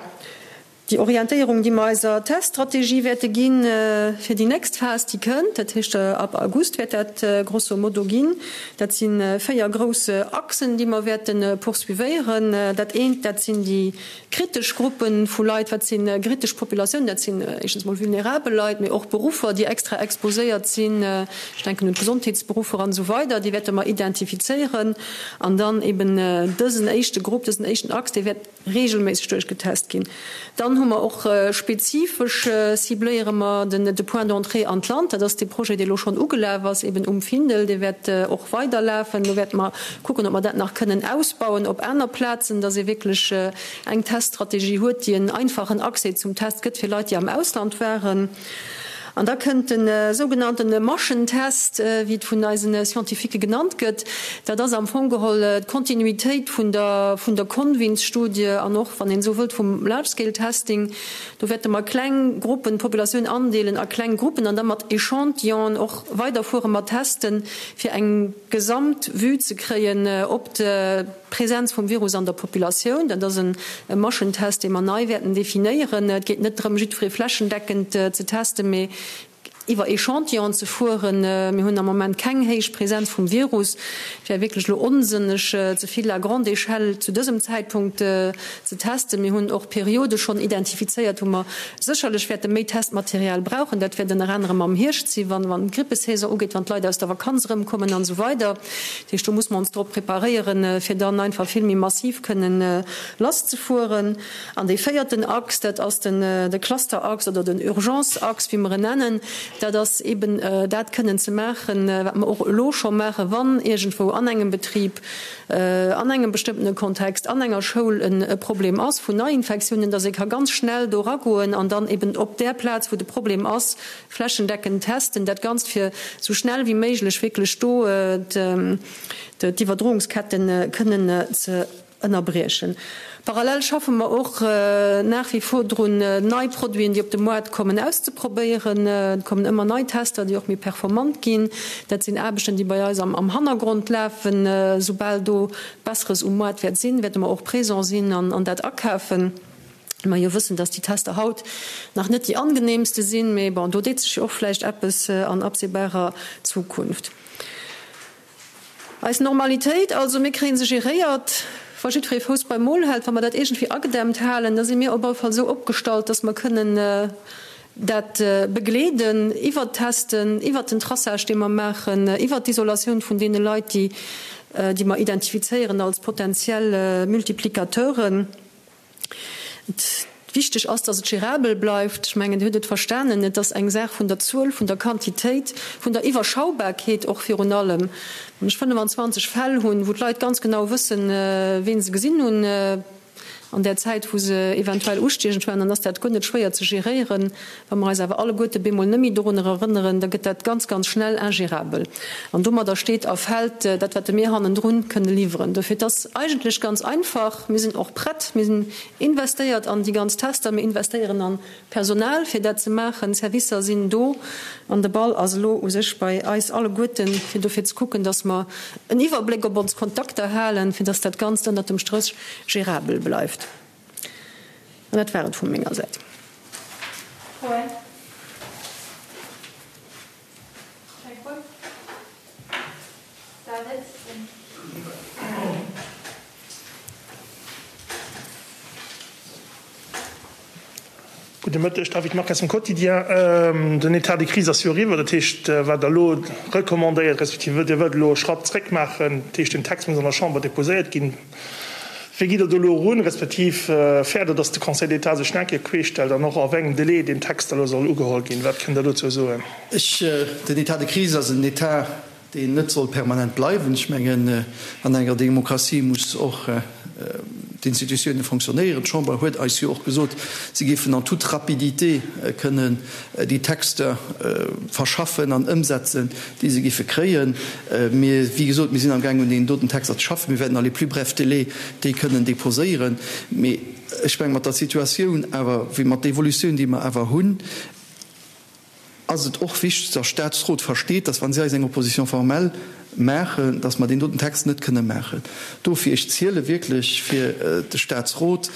Déi Orientéierung, déi mer eiser Teststrategie wäerte ginn fir déi nächst Phas, déi kënnt, dat heescht ab August wäert dat grosso modo ginn, dat si véier grouss Achsen, déi mer wäerte poursuivéieren. Dat eent, dat sinn déi kritesch Gruppe vu Leit. Wat si kritesch Populatiounen? Dat sinn éischtens mol vulnerabel Leit, mee och Beruffer, déi extra exposéiert sinn, ech denken un d'Gesondheetsberuffer an esou weider, déi wäerte mer identifizéieren. An dann eben dësen éischte Grupp, dësen éischten Achs, dee wäert reegelméisseg duerchgetest ginn. Dann hu mer och spezifesch cibléiere mer den de Point d'entrée an d'Land. Dat ass dee Projet, dee elo schonn ugelaf ass, eben um Findel. Dee wäert och weiderlafen. Do wäerte mer kucken, ob mer dat nach kënnen ausbauen op aner Plazen, dass ee wierklech eng Teststrategie huet, déi en einfachen Accès zum Test gëtt fir Leit, déi am Ausland waren. An da kënnt de sougenannte Maschentest, wéi et vun eise Scientifiquë genannt gëtt. Dat ass am Fong geholl d'Kontinuitéit vun der vun der Convins-Studie an och, wann een esou wëllt, vum Large-Scale-Testing. Do wäerte mer kleng Gruppen, d'Populatioun andeelen a kleng Gruppen an da mat Echantillonen och weiderfuere mat testen, fir eng gesamt Vue ze kréien op d'Presenz vum Virus an der Populatioun. Dat ass e Maschentest, dee mer nei wäerten definéieren. Et geet net drëm, jiddweree flächendeckend ze testen, mee iwwer Echantillonen ze fueren. Mir hunn am Moment keng héich Presenz vum Virus. Et wär wierklech elo onsënneg, ze vill à grande échelle zu dësem Zäitpunkt ze testen. Mir hunn och Periode schonn identifizéiert, wou mer sécherlech wäerte méi Testmaterial brauchen. Dat wäert ënner anerem am Hierscht sinn, wann d'Grippesaison ugeet, wann d'Leit aus der Vakanz erëmkommen an esou weider. Dat heescht, do muss mer ons drop preparéieren, fir dann einfach vill méi massiv kënnen lasszefueren. An dee véierten Achs, dat ass den de Clusterachs oder den Urgenceachs, wéi mer en nennen, dat ass eeben dat kënnen ze maachen, wat mer och elo scho maachen, wann iergendwou an engem Betrib, an engem bestëmmtene Kontext, an enger Schoul e Problem ass vun Neiinfektiounen, dass ee ka ganz schnell do eragoen an dann eeben op där Plaz, wou de Problem ass, flächendeckend testen, dat Ganzt fir esou schnell wéi méiglech wierklech do d'Iwwerdroungsketten kënnen ze ënnerbriechen. Parallel schaffe mer och nach wie vor drun, nei Produiten, déi op de Moart kommen, auszeprobéieren. Et kommen ëmmer nei Tester, déi och méi performant ginn. Dat sinn Aarbechten, déi bei eis am Hannergrond lafen. Soubal do Besseres um Moart wäert sinn, wäerte mer och présent sinn an dat akafen. Mer jo wëssen, dass déi Tester haut nach net déi angenehmste sinn, mee bon, do deet sech jo och vläicht eppes an absehbarer Zukunft. Eis Normalitéit also, mir kréie se geréiert, wa jiddweree Fouss beim Mol hält, wa mer dat iergendwéi agedämmt halen, da si mir op alle Fall esou opgestallt, dass mer kënnen dat begleeden iwwert d'Testen, iwwert den Traçage, dee mer maachen, iwwert d'Isolatioun vun deene Leit, déi, déi mer identifizéieren als potentiell Multiplicateuren. Wichteg ass, dass et gérabel bleift. Ech mengen, Dir hutt et verstanen, et ass eng Saach vun der Zuel, vun der Quantitéit, vun der Iwwerschaubarkeet och virun allem. Wann ech 25 Fäll hunn, wou d'Leit ganz genau wëssen, wien se gesinn hunn an där Zäit, wou se eventuell ustiechend waren, dann ass dat guer net schwéier ze geréieren. Wa mer eis awer alleguerte bemol net méi dorunner erënneren, da gëtt dat ganz, ganz schnell ingérabel. An domadder steet a fält dat, wat mir hannendrun kënne liwweren. Dofir, et ass eigentlech ganz einfach, Mir sinn och prett, mir sinn investéiert an déi ganz Tester, mir investéieren a Personal, fir dat ze maachen, d'Servicer sinn do an de Ball ass elo u sech bei eis alleguerten, fir dofir ze kucken, dass mer en Iwwerbléck op ons Kontakter halen, fir dass dat Ganzt ënnert dem Stréch gérabel bleift. An dat war et vu menger Säit. Froen? Keng Fro? David? Gudde Mëtteg, David Marques vum Quotidien. Den État de crise ass jo eriwwer, dat heescht, wat Der elo recommandéiert, respektiv Dir wëllt elo e Schratt zréck maachen, dat heescht, den Text muss an der Chamber déposéiert ginn. Wéi gitt Der do elo erun, respektiv fäert Der, datt de Conseil d'État sech nach eng Kéier queesch stellt an och a wéi engem Délai deen Text da elo soll ugeholl ginn? Wat kënnt Der dozou soen? Ech, den État de crise ass en État, deen net soll permanent bleiwen. Ech mengen, an enger Demokratie muss och d'Institutiounen fonctionnéieren. D'Chamber huet eis jo och gesot, si géifen en toute rapidité kënnen déi Texter verschaffen an ëmsetzen, déi se géife kréien. Mir, wéi gesot, mir sinn amgaangen, un deenen doten Texter ze schaffen. Mir wäerten dans les plus brefs délais déi kënnen déposéieren. Mee ech mengen, mat der Situatioun awer, wéi mat der Evolutioun, déi mer awer hunn, ass et och wichteg, dass Statsrot versteet, dass, wa si eis eng Opposition formelle. Maachen, dass mer deen doten Text net kënne maachen. Dofir, ech ziele wierklech fir de Statsrot,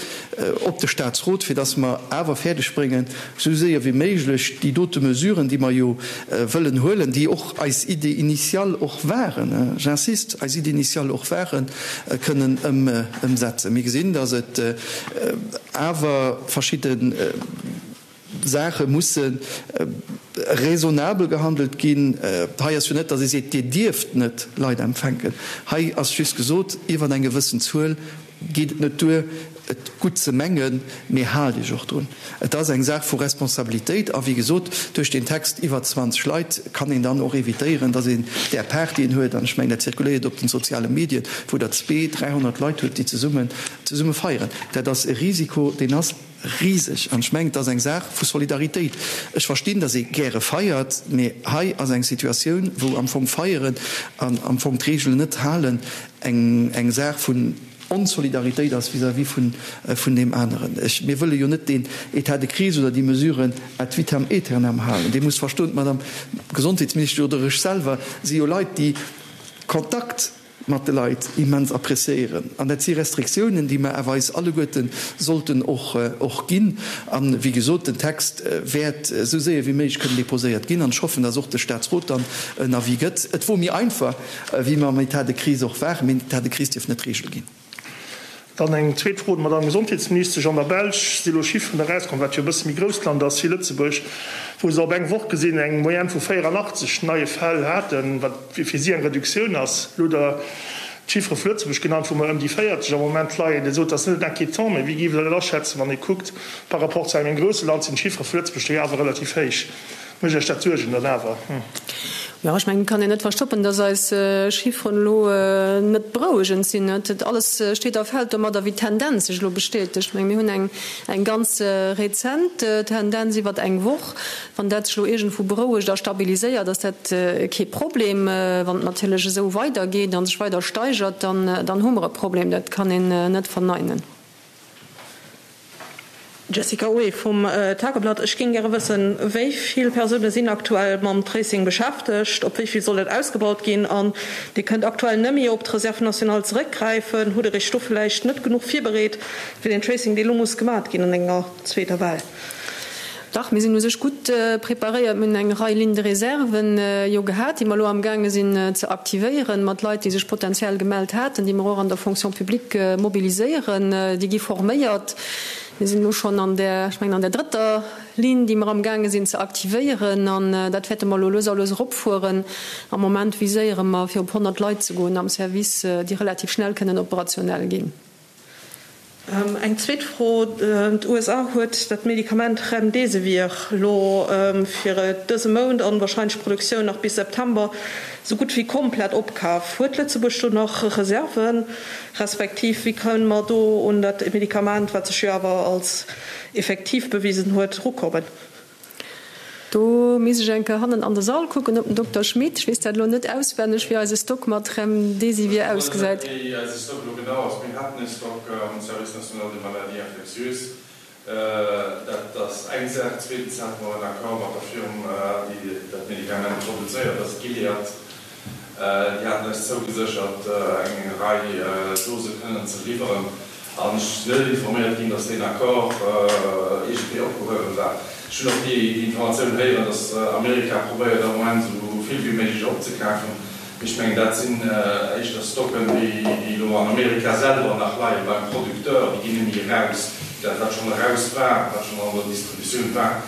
op de Statsrot, fir dass mer awer fäerdeg bréngen, esou séier wéi méiglech déi dote Mesuren, déi mer jo wëllen huelen, déi och eis Idée initiale och waren, j'insiste, eis Idée initiale och waren, kënnen ëmsetzen. Mir gesinn, dass et awer verschidde. Saache musse raisonnabel gehandelt ginn. Hei ass jo net, datt ee seet, Dir dierft net Leit empfänken. Hei ass just gesot, iwwer eng gewëssen Zuel geet et net duer, et gutt ze mengen, mee haalt Iech och drun. Et ass eng Saach vu Responsabilitéit. A wéi gesot, duerch deen Text iwwer 20 Leit kann een dann och evitéieren, datt een där Partyen huet, an ech mengen, dat zirkuléiert op den soziale Medien, wou Der zwee, 300 Leit hutt, déi zesummen zesumme feieren. Dat ass e Risiko, deen ass. Riseg. An ech mengen, et ass eng Saach vu Solidaritéit. Ech verstinn, datt ee gäre feiert, mee hei ass eng Situatioun, wou am Fong feieren an am Fong d'Reegelen net halen eng eng Saach vun Onsolidaritéit ass vis-à-vis vun vun deem aneren. Ech, mir wëlle jo net deen État de crise oder déi Mesuren ad vitam aeternam halen. Dir musst verstoen, d'Madame Gesondheetsministesch oder ech selwer si jo Leit, déi Kontakt, mat de Leit immens appréciéieren. An dat si Restriktiounen, déi mer awer eis alleguerte sollten och och ginn. An, wéi gesot, den Text wäert esou séier wéi méiglech kënnen déposéiert ginn. An ech hoffen, dass och de Statsrot dann en Avis gëtt. Et wor méi einfach, wéi mer am État de crise och waren. Mee den État de crise dierf net d'Regel ginn. Dann eng zweet Fro un d'Madame Gesondheetsministesch. An der Belsch si lo Chifferen erauskomm, wat jo e bësse méi grousst Land ass wéi Lëtzebuerg, wou se op eng Woch gesinn eng Moyenne vu 84 neie Fäll haten, wat fir si eng Reduktioun ass. Elo hutt Der d'Chiffere vu Lëtzebuerg genannt, wou mer ëm déi 40 am Moment leien. Dir sot, dat ass net inquiétant, mä wéi géift Der dat aschätzen, wann ee kuckt, par rapport zu engem grousse Land sinn d'Chiffere vu Lëtzebuerg do jo awer relativ héich. Mécht Iech dat Suergen dann awer? Jo, ech mengen, et kann een net verstoppen, dass eis Chifferen elo net berouegend sinn. Et alles steet a fält domadder, wéi d'Tendenz sech elo bestätegt. Ech menge mir hunn eng eng ganz rezent Tendenz iwwert eng Woch. Wann dat sech elo iergendwou berouegt a stabiliséiert, ass dat kee Problem. Wann et natierlech esou weidergeet a sech weider steigert, dann dann hu mer e Problem. Dat kann een net verneinen. Jessica Oé vum Tageblatt, Ech géing gäre wëssen, wéi vill Persoune sinn aktuell mam Tracing beschäftegt? Op wéi vill soll dat ausgebaut ginn? An Dir kënnt aktuell nëmme op d'Reserve nationale zeréckgräifen. Hutt Der Iech do vläicht net genuch virbereet fir deen Tracing, dee lo muss gemat ginn an enger zweeter Well? Dach, mir sinn u sech gutt preparéiert. Mir hunn eng Rei Lignes de réserve jo gehat, déi mer elo amgaange sinn ze aktivéieren, mat Leit, déi sech potenziell gemellt haten, déi mer och an der Fonction publique mobiliséieren. Déi gi forméiert. Mir sinn elo schonn an där, ech mengen an där drëtter Ligne, déi mer amgaange sinn ze aktivéieren. An dat wäerte mer elo lues a lues eropfueren. Am Moment viséiere mer, fir op 100 Leit ze goen am Service, déi relativ schnell kënnen operationell ginn. Eng zweet Fro, D'USA huet dat Medikament Remdesivir elo fir dëse Mount an wahrscheinlech d'Produktioun nach bis September esou gutt wéi komplett opkaf. Huet Lëtzebuerg do nach Reserven, respektiv wéi kënne mer do un dat Medikament, wat sech jo awer als effektiv bewisen huet, erukommen? Do misst ech eng Kéier hannen an de Sall kucken op den Dokter Schmit. Ech weess dat elo net auswenneg, wéi eise Stock mat Remdesivir ausgesäit. Ech weess net, wéi eise Stock elo genau ass. Mir haten e Stock am Service national des maladies infectieuses. Dat ass eng Saach. Zweetens hate mer en Accord mat der Firma, déi dat Medikament produzéiert, dat ass Gilead. Déi haten eis zougeséchert, eng Rei Dose kënnen ze liwweren. An ech sinn net informéiert ginn, datt deen Accord iergendwéi opgehuewen war. Ech hunn och déi Informatioun héieren, datt Amerika probéiert am Moment esou vill wéi méiglech opzekafen. Mee ech mengen, dat sinn éischter Stocken, déi elo an Amerika selwer nach leie beim Producteur. Déi ginn net méi eraus. Dat, wat schonn eraus war, wat schonn an der Distributioun war,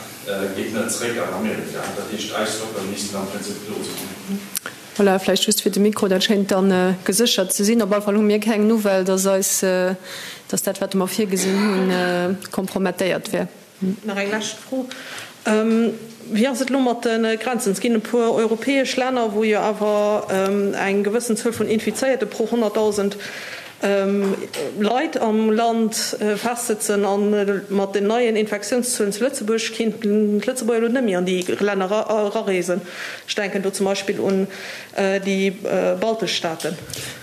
geet net zeréck an Amerika. Dat heescht, eis Stocken missten am Prinzip do sinn. Voilà, vläicht just fir de Mikro, dat schéint dann geséchert ze sinn. Op alle Fall hu mir keng Nouvelle, dass eis, dass dat, wat mer virgesinn hunn, kompromettéiert wär. Nach eng lescht Fro, Wéi ass et elo mat de Grenzen? Et ginn e puer europäesch Länner, wou jo awer eng gewëssen Zuel vun Infizéierte pro 100.000 Leit am Land festsëtzen. A mat den neien Infektiounszuelen zu Lëtzebuerg kéinten d'Lëtzebuerger elo net méi an déi Länner erareesen. Ech denken do zum Beispill un déi baltesch Staaten.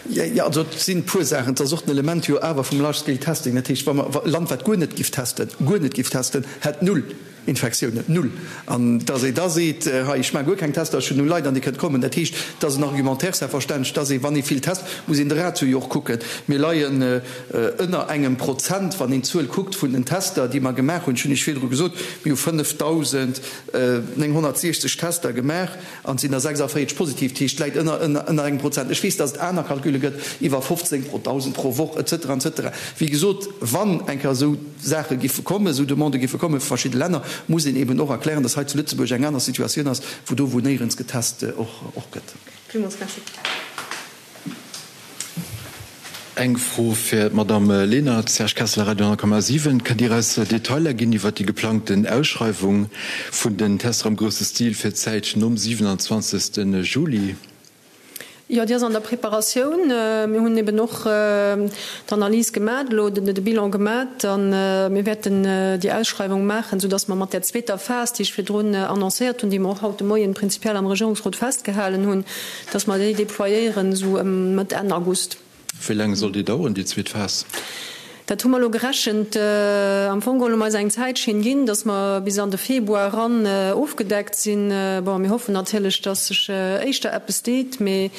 Jo, also et sinn e puer Saachen. Et ass och den Element jo awer vum Large Scale Testing. Dat heescht, wa mer e Land, wat guer net giff testen, guer net giff testen, hätt null. Infektiounen, null! An dass ee da seet, hei, ech maache guer keng Tester, ech hunn null Leit an Dir kënnt kommen, dat heescht, et ass en Argumentaire selbstverständlech, dass ee, wann ee vill test, muss een de Ratio jo och kucken. Mir leien ënner engem Prozent, wann een d'Zuel kuckt vun den Tester, déi mer gemaach hunn. Ech hunn Iech virdru gesot, mir hu 5.960 Tester gemaach. An et sinn der 46 positiv, dat heescht, et läit ënner, ënner engem Prozent. Ech weess, datt et aner Calcule gëtt, iwwer 15 pro 1.000 pro Woch, et cetera, et cetera. Wéi gesot, wann eng Kéier esou Saache giffe kommen, esou Demandë giffe komme vu verschidde Länner, muss een eben och erklären, datt hei zu Lëtzebuerg eng aner Situatioun ass, wou do, wou néierens getest och, och gëtt. Villmools Merci. Eng Fro fir d'Madamm Lenert, Serge Kessler, Radio 10,7. Kënnt Dir eis Detailer ginn iwwert déi geplangten Ausschreiwung vun den Tester am grousse Stil fir d'Zäit nom 27. Juli? Jo, déi ass an der Preparatioun. Mir hunn eben och d'Analys gemat elo, de Bilan gemat a mir wäerten déi Ausschreiwung maachen, soudass mer mat där zweeter Phas, déi ech virdrun annoncéiert hunn, déi mer och haut de Moien prinzipiell am Regierungsrot festgehalen hunn, Dass mer déi déployéieren esou ëm Mëtt, Enn August. Wéi laang soll déi daueren, déi zweet Phas? Dat hu mer elo gerechent. Am Fong geholl hu mer eis eng Zäitschinn ginn, dass mer bis an de Februar eran ofgedeckt sinn. Bon, mir hoffen natierlech, dass sech éischter eppes deet, mee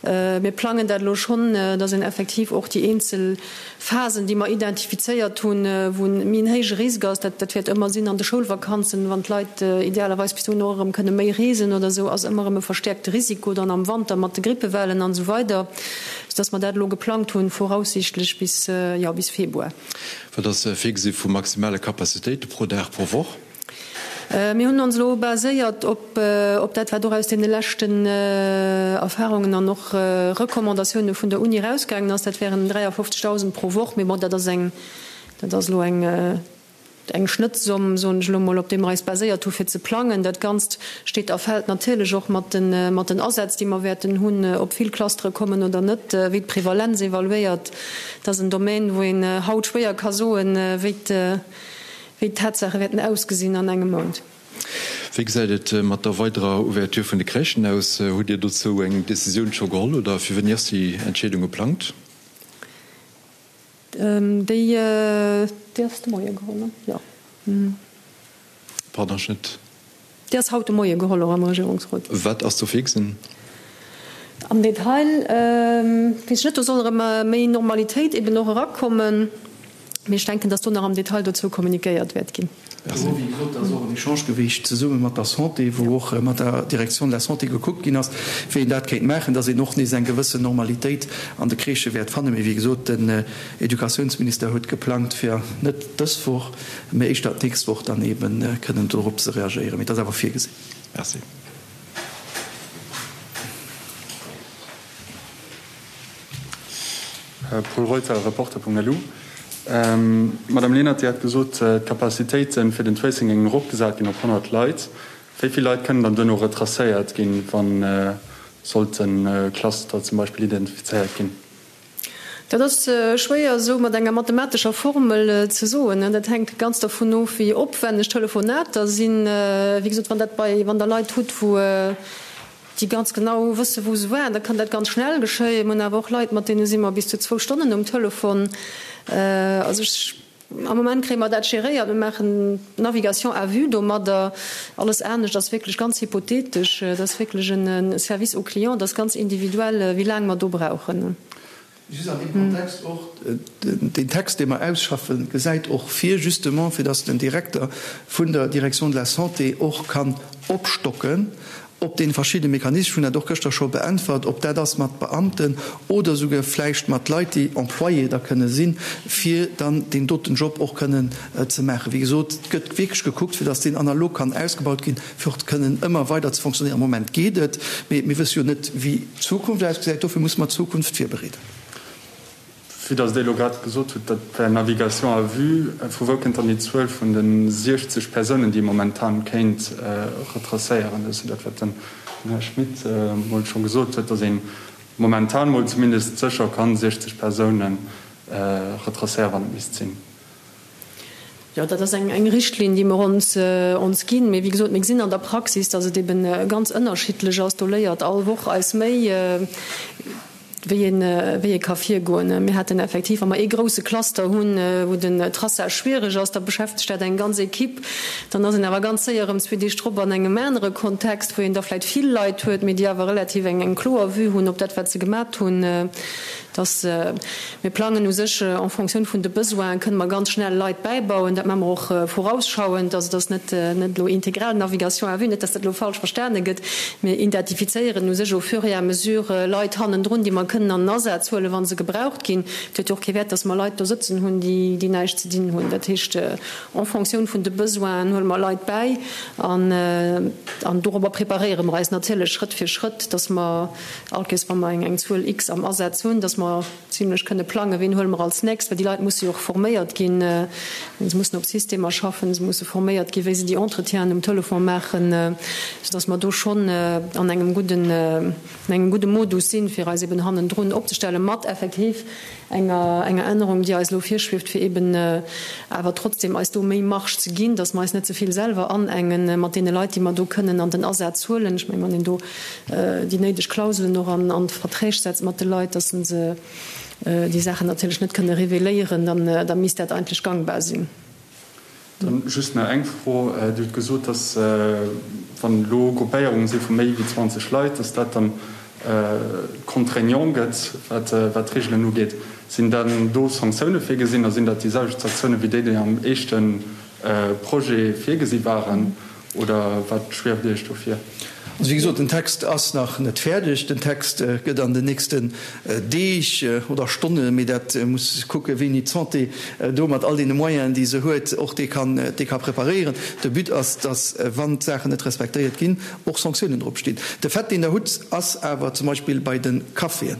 mir plangen dat elo schonn, dass een effektiv och déi eenzel Phasen, déi mer identifizéiert hunn, wou méi en héije Risk ass, dat dat wäert ëmmer sinn an de Schoulvakanzen, wann d'Leit idealerweis bis dohin och erëm kënne méi reesen oder esou, ass ëmmer erëm e verstäerkte Risiko dann am Wanter mat de Grippewellen an esou weider, soudass mer dat elo geplangt hunn, voraussichtlech bis, jo, bis Februar. Wat ass virgesi vu maximale Capacitéite pro Dag, pro Woch? Mir hunn ons elo baséiert op dat, wat och aus deene leschten Erfahrungen an och Recommandatioune vun der Uni erausgaangen ass. Dat wären 53.000 pro Woch. Mee bon, dat ass eng, dat ass elo eng, eng Schnëttsomm, soen ech elo mol, op déi mer eis baséiert hu fir ze plangen. Dat Ganzt steet a fält natierlech och mat de, mat den Asätz, déi mer wäerten hunn, ob vill Clustere kommen oder net, wéi d'Prevalenz evaluéiert. Dat ass en Domaine, wou een haut schwéier ka soen, wéi d', Wéi d'Tatsaache wäerten ausgesinn an engem Mount. Wéi gesäit et mat der weiderer Ouverture vun de Crèchen aus? Hutt Dir dozou eng Decisioun scho geholl oder fir wéini ass déi Entscheedung geplangt? Déi ass de Moie geholl, jo. Pardon, ech net. Déi ass haut de Moie geholl och am Regierungsrot. Wat ass do virgesinn? Am Detail weess ech net. Do soll erëm méi Normalitéit eben och erakommen. Mee ech denken, datt do nach am Detail dozou kommunikéiert wäert ginn. Do, wéi gesot, ass och en Echange gewiescht zesumme mat der Santé, wou och mat der Direction de la Santé gekuckt ginn ass, wéi een dat kéint maachen, datt een och nees eng gewëssen Normalitéit an de Crèchë wäert fannen. Mee wéi gesot, den Educatiounsminister huet geplangt, fir net dës Woch, mä éischter d'nächst Woch dann eebe kënnen dorop ze reagéieren. Mee et ass awer virgesinn. Merci. Paul Reuter, Reporter.lu, Madame Lenert, Dir hat gesot, d'Capacitéite fir den Tracing géingen eropgesat ginn op 100 Leit. Wéi vill Leit kënnen dann duerno retracéiert ginn, wa sollt e Cluster zum Beispill identifizéiert ginn? Dat ass schwéier esou mat enger mathematescher Formel ze soen. Dat hänkt ganz dervun of, wéi opwenneg d'Telefonater sinn. Wéi gesot, wann dat bei, wann Der Leit hutt, wou déi ganz genau wësse wou se waren, da kann dat ganz schnell geschéien. Mir hunn awer och Leit, mat deene si mer bis zu zwou Stonnen um Telefon. Also ech, am Moment kréie mer dat geréiert. Mir maachen Navigation à vue domadder. Alles anescht ass wierklech ganz hypothetesch. Dat ass wierklech e Service au client, dat ass ganz individuell, wéi laang mer do brauchen. Just an deem Kontext och, deen Text, dee mer ausschaffen, gesäit och vir, justement, fir dass den Direkter vun der Direction de la Santé och kann opstocken op deene verschiddene Mechanismen, ech hunn dat och gëschter scho beäntwert, ob dat ass mat Beamten oder souguer vläicht mat Leit, déi Employé da kënne sinn, fir dann deen doten Job och kënnen ze maachen. Wéi gesot, et gëtt wierklech gekuckt, fir dass deen analog kann ausgebaut ginn, fir och kënnen ëmmer weider ze fonctionnéieren. Am Moment geet et, mee mir wësse jo net, wéi d'Zukunft ausgesäit. Dofir musse mer d'Zukunft virbereeden. Vue dass Dir elo grad gesot hutt, dat wär Navigation à vue, vu wou kënnt dann déi Zuel vun de 60 Persounen, déi ee momentan kéint retracéieren? Dat ass jo dat, wat den Här Schmit emol scho gesot huet, dass ee momentan mol zumindest sécher kann 60 Persounen retracéieren, wann et misst sinn. Jo, dat ass eng Richtlinn, déi mer ons ons ginn. Mee wéi gesot, mir gesinn an der Praxis, dass et eben ganz ënnerschiddlech ass. Do léiert all Woch eis méi, wéi. wéi een, wéi ee ka virgoen. Mir haten effektiv, wa mer ee grouse Cluster hunn, wou den Traçage schwierig ass, da beschäftegt dat eng ganz Equipe. Dann ass een awer ganz séier erëm zwee Deeg drop an engem anere Kontext, wou een da vläicht vill Leit huet, mee déi awer relativ eng, eng kloer Vue hunn op dat, wat se gemat hunn. Dass mir plangen u sech en fonction vun de Besoinen, kënne mer ganz schnell Leit bäibauen. Dat maache mer och vorausschauend. Also et ass net net elo integral Navigation à vue, net dass dat elo falsch verstane gëtt. Mir identifizéieren u sech au fur et à mesure Leit hannendrun, déi mer kënnen an den Asaz huelen, wa se gebraucht ginn. Et huet jo och kee Wäert, dass mer Leit do sëtzen hunn, déi déi näischt ze dinn hunn. Dat heescht, en fonction vun de Besoinen huele mer Leit bäi an an dorobber preparéiere mer eis natierlech Schrëtt fir Schrëtt, dass mer All Kees, wa mer eng Zuel X am Asaz hunn, dass mer zimlech kënne plangen, wien huele mer als nächst, well déi Leit musse jo och forméiert ginn, se mussen op Systemer schaffen, se musse forméiert ginn, wéi se déi Entretienen um Telefon maachen, soudass mer do schonn an engem gudden, an engem gudde Modus sinn, fir eis eben hannendrun opzestellen, mat effektiv enger, enger Ännerung, déi eis elo virschwieft, fir eben awer trotzdem eis do méi Marge ze ginn, dass mer eis net ze vill selwer anengen mat deene Leit, déi mer do kënnen an den Asaz huelen. Ech mengen, wann een do déi néideg Klauselen och an d'Verträg setzt mat de Leit, dass se déi Saachen natierlech net kënne reveléieren, dann da misst dat eigentlech gangbar sinn. Dann just nach eng Fro. Dir hutt gesot, dass wann elo Gruppéierunge si vu méi wéi 20 Leit, dass dat dann contraignant gëtt, wat d'Reegelen ugeet. Sinn dann do Sanktioune virgesinn a sinn dat déi selwecht Sanktioune wéi déi, déi am éischte Projet virgesi waren? Oder wat schwieft Iech do vir? Also wéi gesot, den Text ass nach net fäerdeg. Den Text gëtt an den nächsten Deeg oder Stonnen, mee dat muss kucken, wéini d'Santé do mat all deene Moyenen, déi se huet, och dee kann, dee ka preparéieren. De But ass, dass, wann d'Saachen net respektéiert ginn, och Sanktiounen drop stinn. De Fait, deen Der hutt, ass awer zum Beispill bei de Caféen.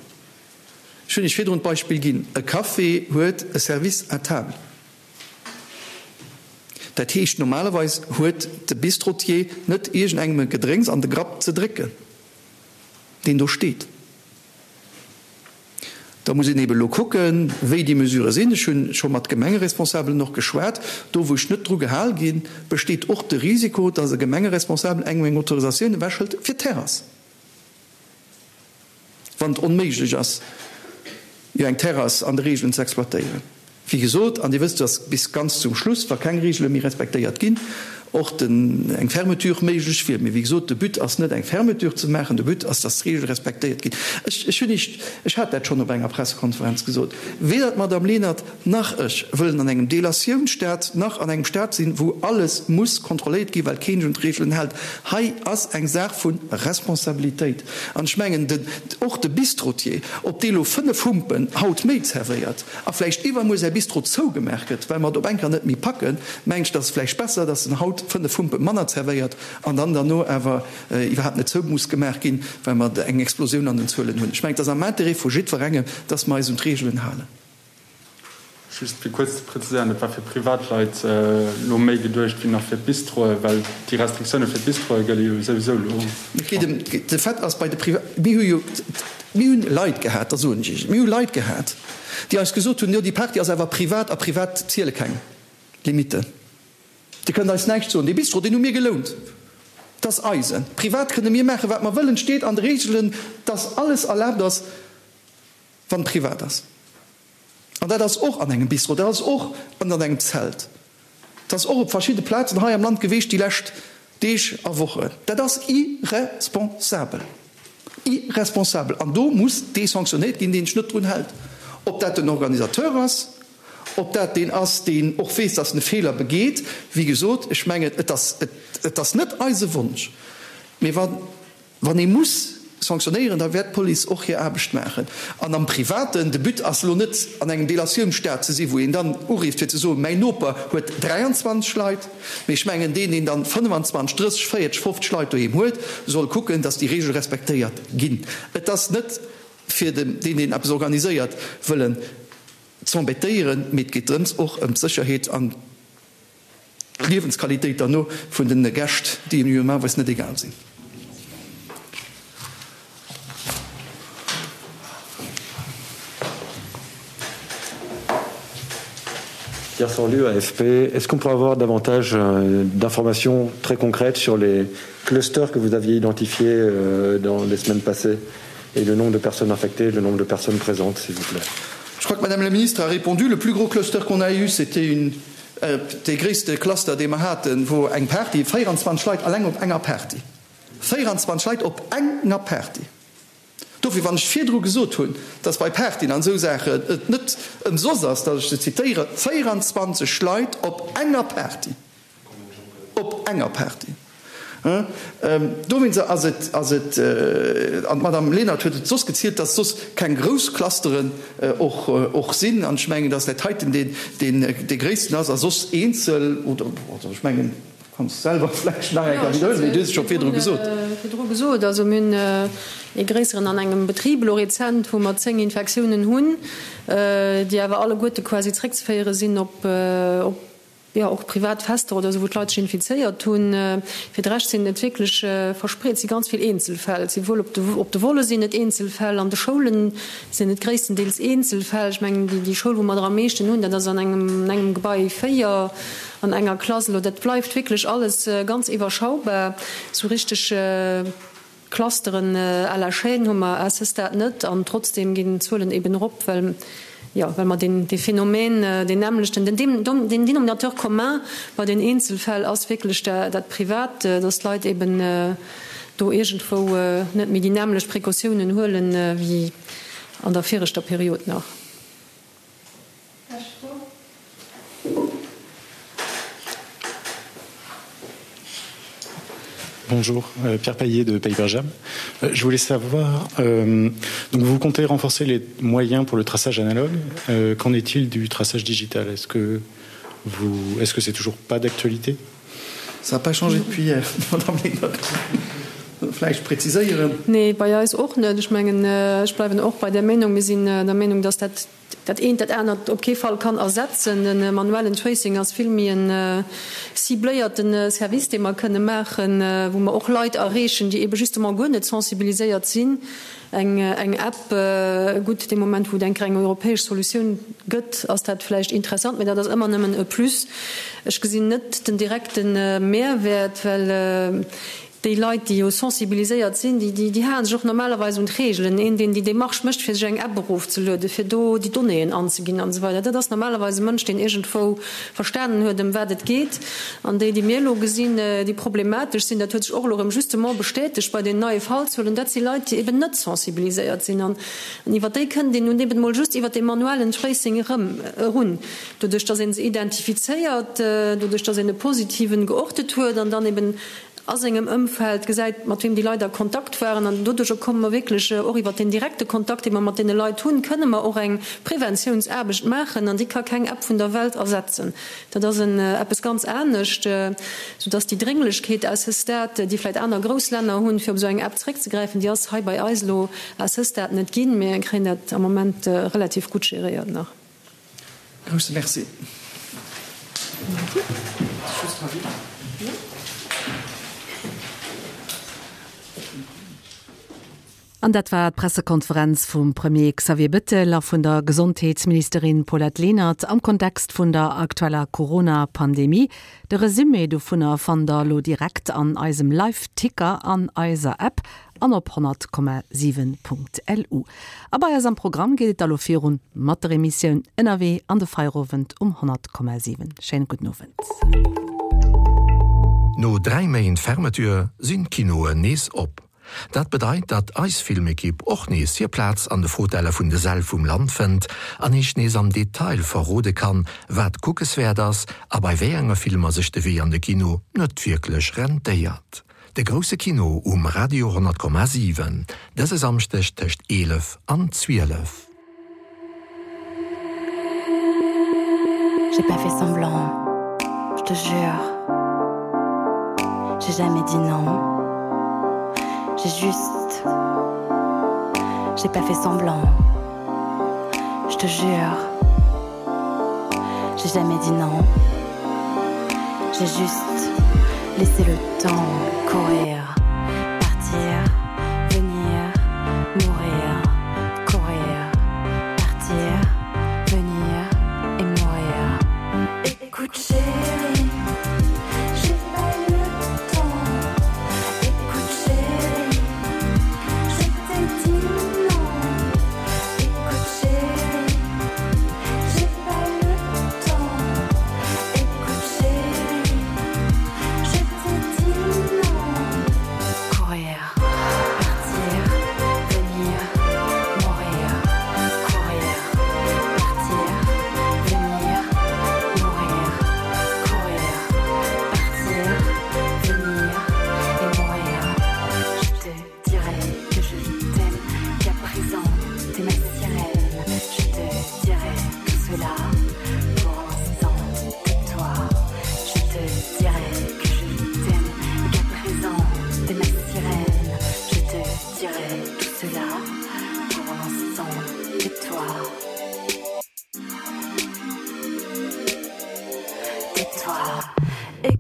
Ech hunn Iech virdrun d'Beispill ginn, E Café huet e Service à table. Dat heescht, normalerweis huet de Bistrotier net iergendengem e Gedrénks an de Grapp ze drécken, deen do steet. Da muss een eeben elo kucken, wéi déi Mesurë sinn. Ech hu scho mat Gemengeresponsabelen och geschwat. Do, wou ech net dru gehal ginn, besteet och de Risiko, dass e Gemengeresponsabel engem eng Autorisatioun ewechhëlt fir d'Terrass. Wann et onméiglech ass, jo eng Terrass an de Reegelen ze exploitéieren. Wéi gesot, an Dir wësst, dass bis ganz zum Schluss, wa keng Reegele méi respektéiert ginn, och den, eng Fermeture méiglech wier. Mee wéi gesot, de But ass net, eng Fermeture ze maachen, de But ass, dass d'Reegele respektéiert ginn. Ech, ech hunn Iech, ech hat dat schonn op enger Pressekonferenz gesot, weder d'Madame Lenert nach ech wëllen an engem Delatiounsstat nach an engem Stat sinn, wou alles muss kontrolléiert ginn, well keen sech un d'Reegelen hält. Hei ass eng Saach vu Responsabilitéit. An ech mengen, den, och de Bistrotier, ob dee lo 5 Humpen haut méi zerwéiert a vläicht iwwermuer säi Bistro zougemaach gëtt, well mer et op eng Kéier net méi packen, mengen ech, et ass vläicht besser, datt en haut 5 Humpe manner zerwéiert an dann derno awer iwwerhaapt net zou muss gemaach ginn, well mer eng Explosioun an den Zuelen hunn. Ech mengen, et ass am Interêt vu jiddwerengem, datt mer eis un d'Reegelen halen. Just fir kuerz ze präziséieren, Et war fir Privatleit elo méi geduecht wéi nach fir d'Bistroe, well déi Restriktioune fir d'Bistroe gëlle jo souwisou elo Et geet ëm de Fait ass bei de Priva, mir hu jo, mir hunn Leit gehat, da soen ech Iech et, mir hu Leit gehat, déi eis gesot hunn, jo déi Party ass awer privat a privat ziele keng Limitten. Dir kënnt eis näischt soen, dee Bistro, deen hu mir gelount, dat ass eisen. Privat kënne mir maachen, wat mer wëllen, et steet an de Reegelen, dass alles erlaabt ass, wann et privat ass. An dat ass och an engem Bistro, dat ass och ënnert engem Zelt, dat ass och op verschidde Plazen hei am Land geweecht déi lescht Deeg a Wochen. Dat ass irresponsabel, irresponsabel! An do muss dee sanctionéiert ginn, deen sech net drun hält, ob dat den Organisateur ass, ob dat deen ass, deen och weess, dass en e Feeler begeet. Wéi gesot, ech mengen, et ass, et ass net eise Wonsch, mee wann, Wann ee muss sanctionéieren, da wäert d'Police och hir Aarbecht maachen. An am Privaten, de But ass elo net, an engem Delatiounsstat ze sinn, wou een dann urifft fir ze soen, mäin Noper huet 23 Leit, mee ech mengen, deen, deen dann 25, 30, 40, 50 Leit doheem huet, soll kucken, datt déi Reegele respektéiert ginn. Et ass net fir deen, deen eppes organiséiert, wëllen z'embêtéieren, mee et geet drëms och ëm d'Sécherheet an D'Liewensqualitéit derno vun den Gäscht, déi engem jo normalerweis net egal sinn. Pierre Sorlu, AFP. Est-ce qu'on pourrait avoir davantage d'informations très concrètes sur les clusters que vous aviez identifiés dans les semaines passées? Et le nombre de personnes infectées, le nombre de personnes présentes, s'il vous plaît. Je crois que Madame la Ministre a répondu. Le plus gros cluster qu'on a eu, c'était une dee gréisste Cluster, dee mer haten, wor eng Party, 24 Leit alleng op enger Party. 24 Leit op enger Party! Dofir, wann ech virdru gesot hunn, dass bei Partyen an esou Saachen et net ëmsoss ass, dass ech se zitéieren, 24 Leit op enger Party! Op enger Party. Dowéinst ass et, ass et, an d'Madame Lenert huet et soss gezielt, dass soss keng grouss Clusteren och, och sinn. An ech mengen, dass dat heiten deen, deen dee gréissten ass a soss eenzel oder, also ech mengen, du kanns selwer vläicht nach eng Kéier widderhuelen, mee du hues et scho virdru gesot. Virdru gesot. Also mir hunn ee gréisseren an engem Betrib elo rezent, wou mer 10 Infektiounen hunn, déi awer alleguerte quasi zréckzeféiere sinn op, op jo, och privat Fester oder esou, wou d'Leit sech infizéiert hunn. Fir de Rescht sinn et wierklech verspreet, et si ganz vill Eenzelfäll. Et si wuel op de, op de Volle sinn et Eenzelfäll, an de Schoule sinn et gréisstendeels Eenzelfäll. Ech mengen, déi, déi Schoul, wou mer der am meeschten hunn, dat ass an engem, an engem Gebai 4 an enger Klass. Elo, dat bleift wierklech alles ganz iwwerschaubar. Esou richteg. Clusteren à la chaîne hu mer à ce stade net an trotzdeem ginn d'Zuelen eben erop, well, jo, well mer deen, dee Phänomen, deen nämmlechten, den, den Dénominateur commun bei den Eenzelfäll ass wierklech dat Privat, dass d'Leit eben do iergendwou net méi déi nämmlecht Precautiounen huelen wéi an der viregter Period nach. Bonjour, euh, Pierre Paillet de Paperjam. Euh, je voulais savoir, euh, donc vous comptez renforcer les moyens pour le traçage analogue. Euh, Qu'en est-il du traçage digital Est-ce que vous, est-ce que c'est toujours pas d'actualité Ça n'a pas changé depuis hier, Madame Lenert. Vläicht präziséieren. Nee, bei eis och net. Ech mengen, ech bleiwen och bei där Meenung. Mir sinn der Meenung, dass dat dat eent dat anert op kee Fall kann ersetzen. De manuellen Tracing ass vill méi e cibléierte Service, dee mer kënne maachen, wou mer och Leit erreechen, déi ebe justement guer net sensibiliséiert sinn. Eng eng App, gutt, dee Moment, wou et eng Kéier eng europäesch Solutioun gëtt, ass dat vläicht interessant, mä dat ass ëmmer nëmmen e Plus. Ech gesinn net den direkte Mehrwäert, well Déi Leit, déi jo sensibiliséiert sinn, déi, déi halen sech och normalerweis un d'Reegelen. Een, deen déi Démarche mécht, fir sech eng App erofzelueden, fir do déi Donnéeën anzeginn an esou weider, dat ass normalerweis e Mënsch, deen iergendwou verstanen huet, ëm wat et geet. An déi, déi mir elo gesinn, déi problematesch sinn, dat huet sech och elo erëm justement bestätegt bei den neie Fallzuelen, dat si Leit, déi eben net sensibiliséiert sinn. An iwwer déi kënnt een nun eben emol just iwwer dee manuellen Tracing erëm erun, doduerch dass ee se identifizéiert, doduerch dass een e Positiven geortet huet an dann eben a sengem Ëmfeld gesäit, mat weem déi Leit a Kontakt waren. An doduercher komme mer wierklech och iwwert deen direkte Kontakt, dee mer mat deene Leit hunn, kënne mer och eng Preventiounsaarbecht maachen. An déi ka keng App vun der Welt ersetzen. Dat ass en eppes ganz anescht, soudass déi Drénglechkeet à ce stade, déi vläicht aner grouss Länner hunn, fir op esou eng App zréckzegräifen, déi ass hei bei eis elo à ce stade net ginn. Mir kréien dat am Moment relativ gutt geréiert nach. Grousse Merci. An dat war d'Pressekonferenz vum Premier Xavier Bettel a vun der Gesondheetsministerin Paulette Lenert am Kontext vun der aktueller Corona-Pandemie. De Resumé dovunner fannt der elo direkt an eisem Live-Ticker an eiser App an op 100,7.lu. A bei eis am Programm geet et da lo virun mat der Emissioun Ënnerwee an de Feierowend um 100,7. Schéine gudden Owend. No 3 Méint Fermeture sinn d'Kinoen nees op. Dat bedeit, datt eis Filmekipp och nees hir Plaz an de Fotelle vun de Säll vum Land fënnt an iech nees am Detail verrode kann, wat kuckeswäert ass a bei wéi enge Filmer sech de Wee an de Kino net wierklech rentéiert. De grousse Kino um Radio 100,7, dëse Samschdeg tëscht 11 an 12. J'ai pas fait semblant, je te jure. J'ai jamais dit non. J'ai juste. J'ai pas fait semblant. Je te jure. J'ai jamais dit non. J'ai juste laissé le temps courir, partir, venir, mourir, courir, partir, venir et mourir. Écoute chérie, j'ai pas le temps. Écoute chérie, je t'ai dit.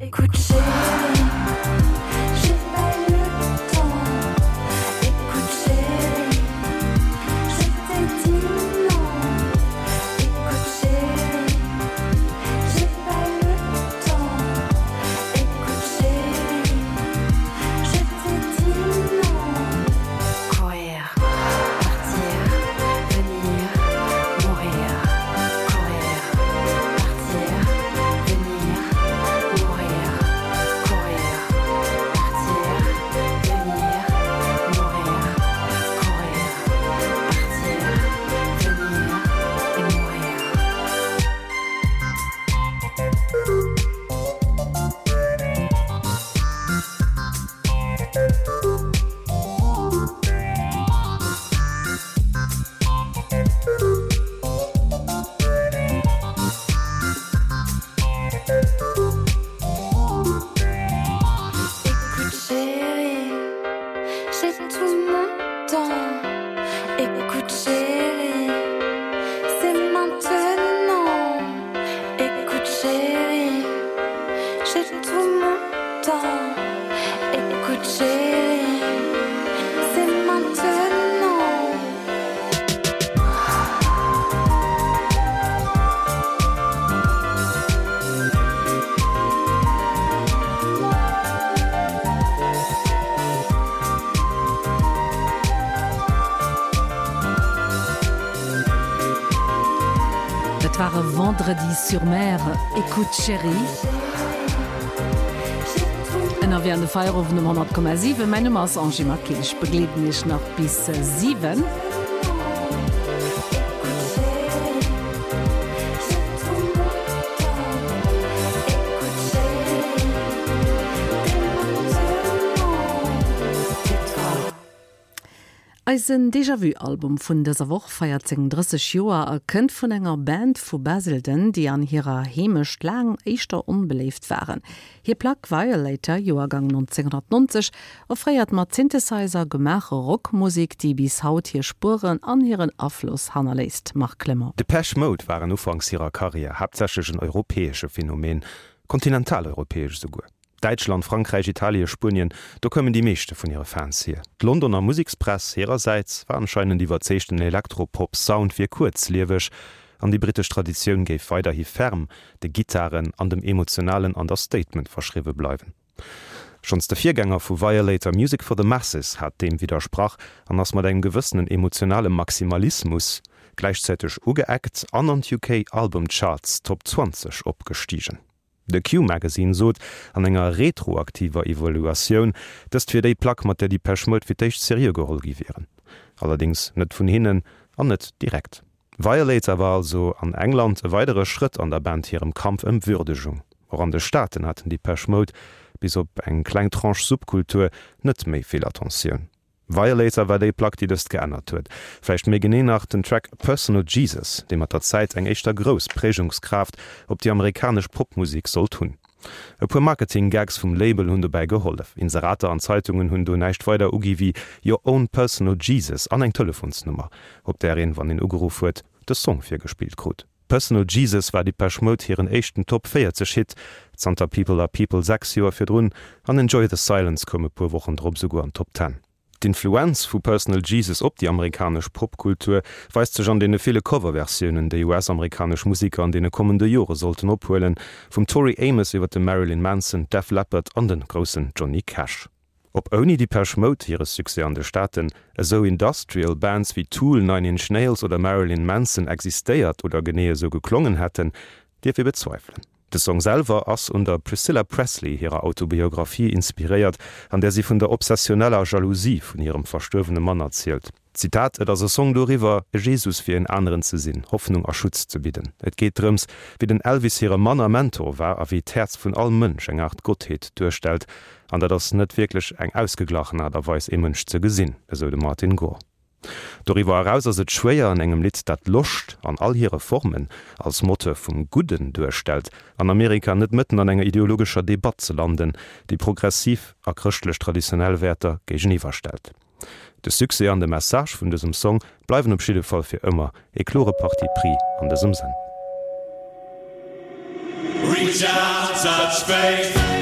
Écoute chérie, j'ai pas le temps. Écoute chérie, je t'ai dit non. Écoute chérie, j'ai pas le temps. Écoute chérie, je t'ai dit non. Courir, partir, venir, mourir, courir, partir, venir, mourir, courir, partir, venir, mourir, courir, partir, venir et mourir. Écoute chérie, j'ai tout mon temps. Écoute chérie, c'est maintenant. Écoute chérie, j'ai tout mon temps. Écoute chérie, c'est maintenant. Dat war e Vendredi sur mer, Écoute chérie. Ënnerwee an de Feierowend um 100,7. Mäin Numm ass Angie Maquil, ech begleeden Iech nach bis 7. Eisen Déjà-Vu-Album vun dëser Woch feiert seng 30 Joer a kënnt vun enger Band vu Basildon, déi an hirer Heemecht laang éischter onbeléift waren. Hir Plack Violator, Joergang 1990, offréiert mat Synthesizer gemaache Rockmusek, déi bis haut hir Spueren an hiren Afloss hannerléisst. Marc Clement. Depeche Mode waren ufanks hirer Karriär haaptsächlech en europäesche Phänomen, kontinentaleuropäesch esouguer. Däitschland, Frankräich, Italie, Spuenien, do koumen déi meeschte vun hire Fans hier. D'Londoner Musekspress hirersäits war anscheinend iwwerzeegt, den Elektropop-Sound wier kuerzlieweg an déi brittesch Traditioun géif weiderhi ferm de Gittaren an dem emotionalen Understatement verschriwwe bleiwen. Schonns de Virgänger vu Violator, Music for the Masses, hat deem widdersprach an ass mat engem gewëssenen emotionale Maximalismus gläichzäiteg ugeeckt an an d'UK Album Charts Top 20 opgestigen. De Q-Magazine sot an enger retroaktiver Evaluatioun, dëst wier déi Plack, mat där Depeche Mode fir d'éischt seriö geholl gi wieren. Allerdéngs net vun hinnen an net direkt. Violator war also an England e weidere Schrëtt an der Band hirem Kampf ëm Würdegung. Och an de Staaten haten Depeche Mode, bis op eng kleng Tranche Subkultur, net méi vill Attentioun. Violator war déi Plack, déi dëst geännert huet. Vläicht méi genee nach den Track Personal Jesus, dee mat der Zäit eng éischter grouss Prägungskraaft op déi amerikanesch Popmusek sollt hunn. E puer Marketing-Gags vum Label hunn dobäi gehollef. Inserater an Zeitungen hunn do näischt weider ugi wéi Your own personal Jesus an eng Telefonsnummer, op där een, wann een ugeruff huet, de Song virgespillt krut. Personal Jesus war Depeche Mode hiren éischten Top 40 Hit zanter People Are People 6 Joer virdrun an Enjoy the Silence koum e puer Wochen drop esouguer an d'Top Ten. D'Influenz vu Personal Jesus op déi amerikanesch Popkultur weist sech an deene ville Coverversiounen, déi US-amerikanesch Museker an deene kommende Jore sollten ophuelen, vum Tori Amos iwwer de Marilyn Manson, Def Leppard an de groussen Johnny Cash. Ob ouni Depeche Mode hire Succès an de Staaten esou Industrial Bands wéi Tool, Nine Inch Nails oder Marilyn Manson existéiert oder genee esou geklongen hätten, dierf ee bezweifelen. De Song selwer ass un der Priscilla Presley hirer Autobiographie inspiréiert, an där si vun der obsessioneller Jalousie vun hirem verstuerwene Mann erzielt. Zitat, Et ass e Song doriwwer, e Jesus fir en aneren ze sinn, Hoffnung a Schutz ze bidden. Et geet drëms, wéi den Elvis hire Mann a Mentor war a wéi d'Häerz vun all Mënsch eng Aart Gottheet duerstellt. An dat ass net wierklech eng ausgeglachen Aart a Weis, ee Mënsch ze gesinn, esou de Martin Gore. Doriwwer eraus ass et schwéier, an engem Lidd, dat Loscht an all hire Formen als Moteur vum Gudden duerstellt, an Amerika net mëtten an enger ideologescher Debatt ze landen, déi progressiv a chrëschtlech traditionell Wäerter géigeniwwerstellt. De Succès an de Message vun dësem Song bleiwen op jidde Fall fir ëmmer e klore Parti pris an dësem Sënn. Reach out, touch faith.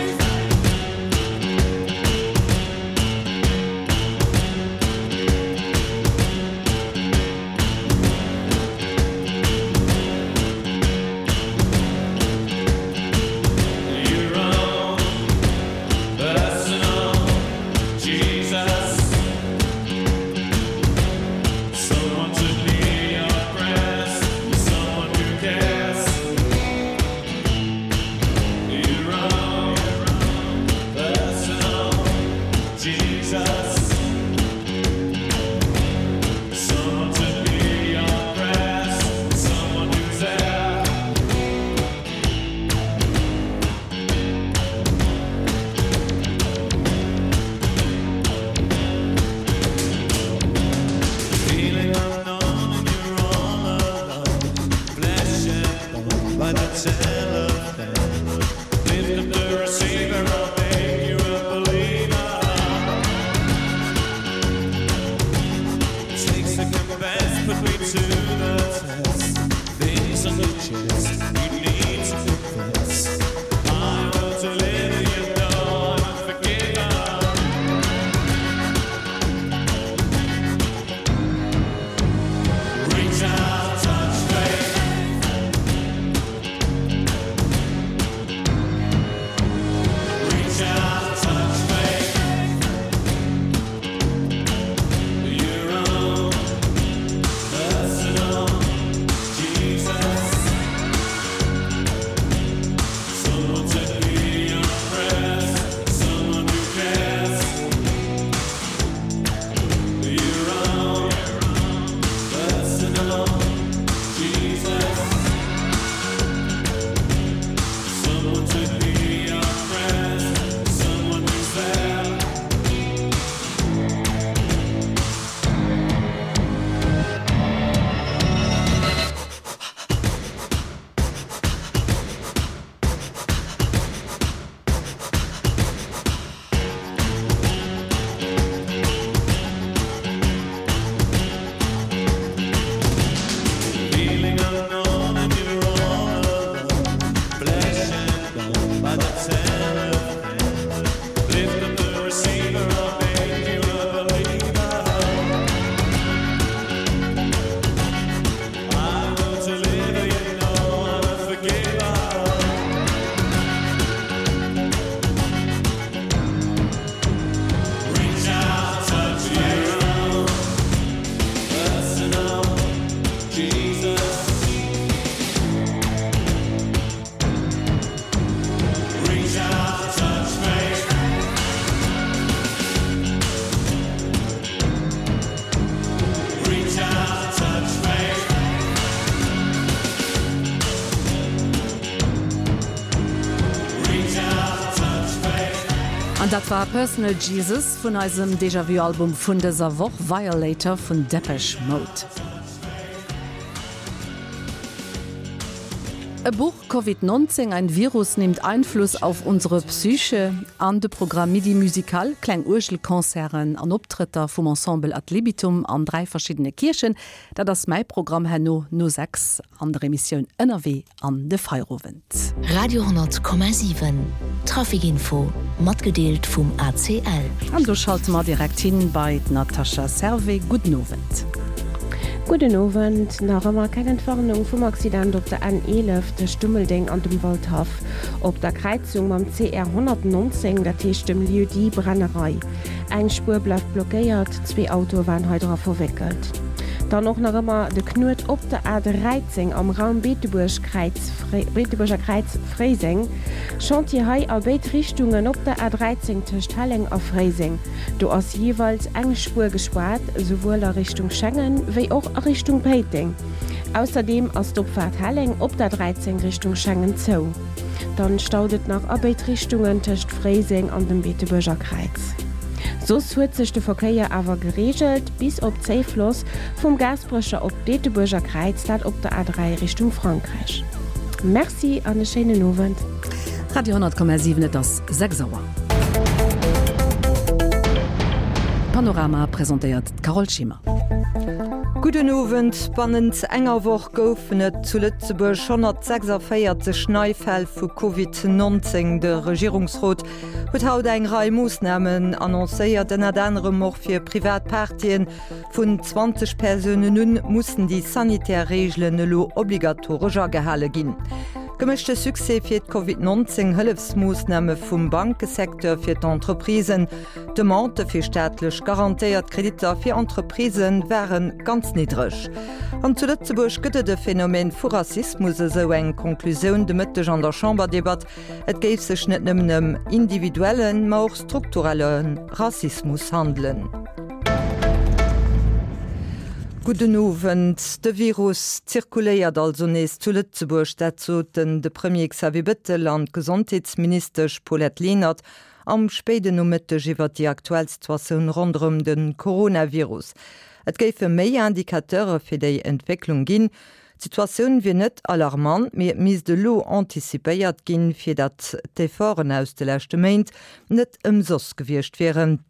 An dat war Personal Jesus vun eisem Déjà-Vu Album vun dëser Woch, Violator vun Depeche Mode. E Buch, Covid 19, Ein Virus nimmt Einfluss auf unsere Psyche an de Programm Midi Musical, kleng Uergelconcerten an Optrëtter vum Ensemble Ad Libitum an 3 verschiddene Kierchen. Dat ass mäi Programm herno no 6 an der Emissioun Ënnerwee an de Feierowend. Radio 10,7 Traficinfo matgedeelt vum ACL. An do schalte mer direkt hin bei d'Natasha Servais. Gudden Owend. Gudden Owend. Nach ëmmer keng Entwarnung vum Accident op der N11 tëscht Dummeldeng an dem Waldhaff op der Kräizung mam CR 119, dat heescht dem Lieu-dit Brennerei. Eng Spuer bleift blockéiert, zwee Autoe waren hei dra verwéckelt. Dann och nach ëmmer de Knuet op der A13 am Raum Beetebuerg-Kräiz, Beetebuerger Kräiz, Fréiseng. Chantier hei a béid Richtungen op der A13 tëscht Helleng a Fréiseng. Do ass jeeweils eng Spuer gespaart, souwuel a Richtung Schengen wéi och a Richtung Péiteng. Ausserdeem ass d'Opfaart Helleng op der 13 Richtung Schengen zou. Dann staut et nach a béid Richtungen tëscht Fréiseng an dem Beetebuerger Kräiz. Soss huet sech de Verkéier awer gereegelt, bis op Zéifloss vum Gaasperecher op d'Beetebuerger Kräiz, dat op der A3 Richtung Frankräich. Merci an e schéinen Owend. Radio 10,7 Et ass 6 Auer. Panorama presentéiert d'Carole Schimmer. Gudden Owend. Bannent enger Woch goufen et zu Lëtzebuerg 146 nei Fäll vu Covid 19. De Regierungsrot huet haut eng Rei Moossnamen annoncéiert, ënnert anerem och fir privat Partyen. Vun 20 Persounen un mussen déi sanitär Reegelen elo obligatoresch agehale ginn. Gemëschte Succès fir d'Covid 19 Hëllefsmoossname vum Bankesecteur fir d'Entreprisen. D'Demande fir staatlech garantéiert Kreditter fir Entreprisë ware ganz niddreg. An zu Lëtzebuerg gëtt et e Phänomen vu Rassismus, esou eng Conclusioun de Mëtteg an der Chamberdebatt. Et géif sech net nëmmen ëm individuellen, ma och strukturelle Rassismus handelen. Gudden Owend. De Virus zirkuléiert also nees zu Lëtzebuerg. Dat soten de Premier Xavier Bettel an d'Gesondheetsministesch Paulette Lenert am spéiden Nomëtteg iwwer déi aktuell Situatioun ronderëm de Coronavirus. Et géife méi Indicateure fir déi Entwécklung ginn. D'Situatioun wier net alarmant, mee et misst elo anticipéiert ginn, fir datt d'Efforten aus de leschte Méint net ëmsoss gewiescht wieren.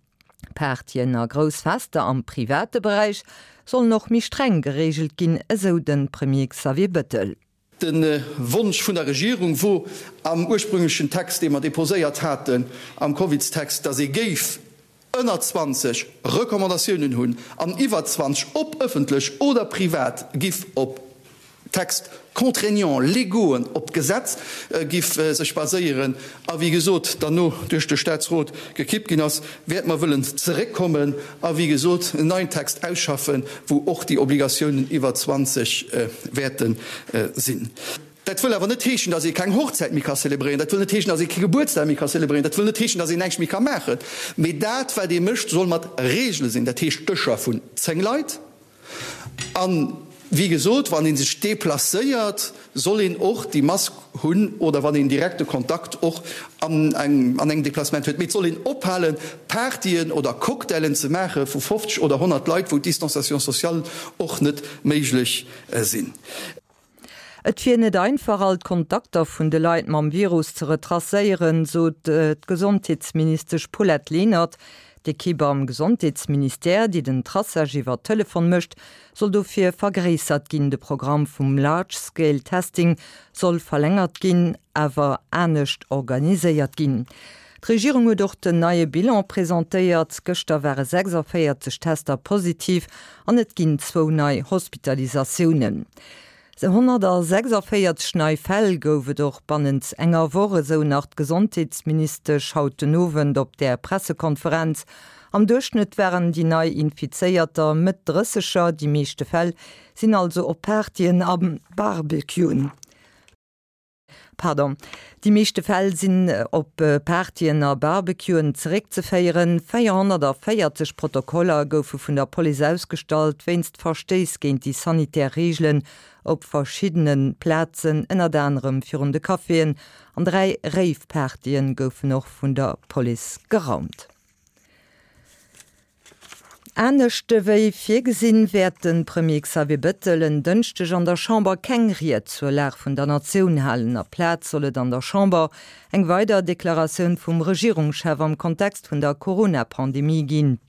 Partyen a grouss Fester am private Beräich sollen och méi streng gereegelt ginn, esou de Premier Xavier Bettel. De Wonsch vun der Regierung wor am ursprünglechen Text, dee mer deposéiert haten, am Covidstext, datt ee géif ënner 20 Recommandatiounen hunn an iwwer 20, ob ëffentlech oder privat, giff op Textes contraignants légauxen op d'Gesetz giff sech baséieren a wéi gesot derno duerch de Staatsrot gekippt ginn ass, wäerte mer wëllen zeréckkommen a wéi gesot en neien Text ausschaffen, wou och déi Obligatiounen iwwer 20 wäerte sinn. Dat wëll awer net heeschen, dass ee keng Hochzäit méi ka zelebréieren, dat wëll net heeschen, dass ee kee Gebuertsdag méi ka zelebréieren, dat wëll net heeschen, dass een näischt méi ka maachen, mee dat wat ee mécht soll mat Regele sinn, dat heescht Dëscher vun 10 Leit, An, wéi gesot, wann ee sech deplacéiert, soll een och déi Mask hunn oder wann een direkte Kontakt och an engem Deplacement huet. Mee et soll een ophalen, Partyen oder Cocktailen ze maache vu 50 oder 100 Leit, wou d'Distanciation sociale och net méiglech sinn. Et wier net einfach, all d'Kontakter vun de Leit mam Virus ze retracéieren, sot d'Gesondheetsministesch Paulette Lenert. D'Ekipp am Gesondheetsministère, déi den Traçage iwwer Telefon mécht, soll dofir vergréissert ginn. De Programm vum Large Scale Testing soll verlängert ginn, awer anescht organiséiert ginn. D'Regierung huet och den neie Bilan presentéiert. Gëschter ware 46 Tester positiv an et ginn zwou nei Hospitalisatiounen. 146 nei Fäll gouf et och bannent enger Woch, esou nach d'Gesondheetsministesch haut den Owend op där Pressekonferenz. Am Duerchschnëtt waren déi nei Infizéierter Mëtt Drësseger, déi meeschte Fäll sinn also op Partyen a Barbecuen. Pardon. Déi meeschte Fäll sinn op Partyen a Barbecuen zeréckzeféieren. 440 Protokoller goufe vun der Police ausgestallt wéinst Verstéiss géint déi sanitär Reegelen op verschiddene Plazen, ënnert anerem virun de Caféen. An 3 Rave-Partye goufen och vun der Police geraumt. Anescht ewéi virgesinn, wäert de Premier Xavier Bettel en Dënschdeg an der Chamber keng Ried zur Lag vun der Natioun halen. Aplaz soll et an der Chamber eng weider Deklaratioun vum Regierungschef am Kontext vun der Corona-Pandemie ginn.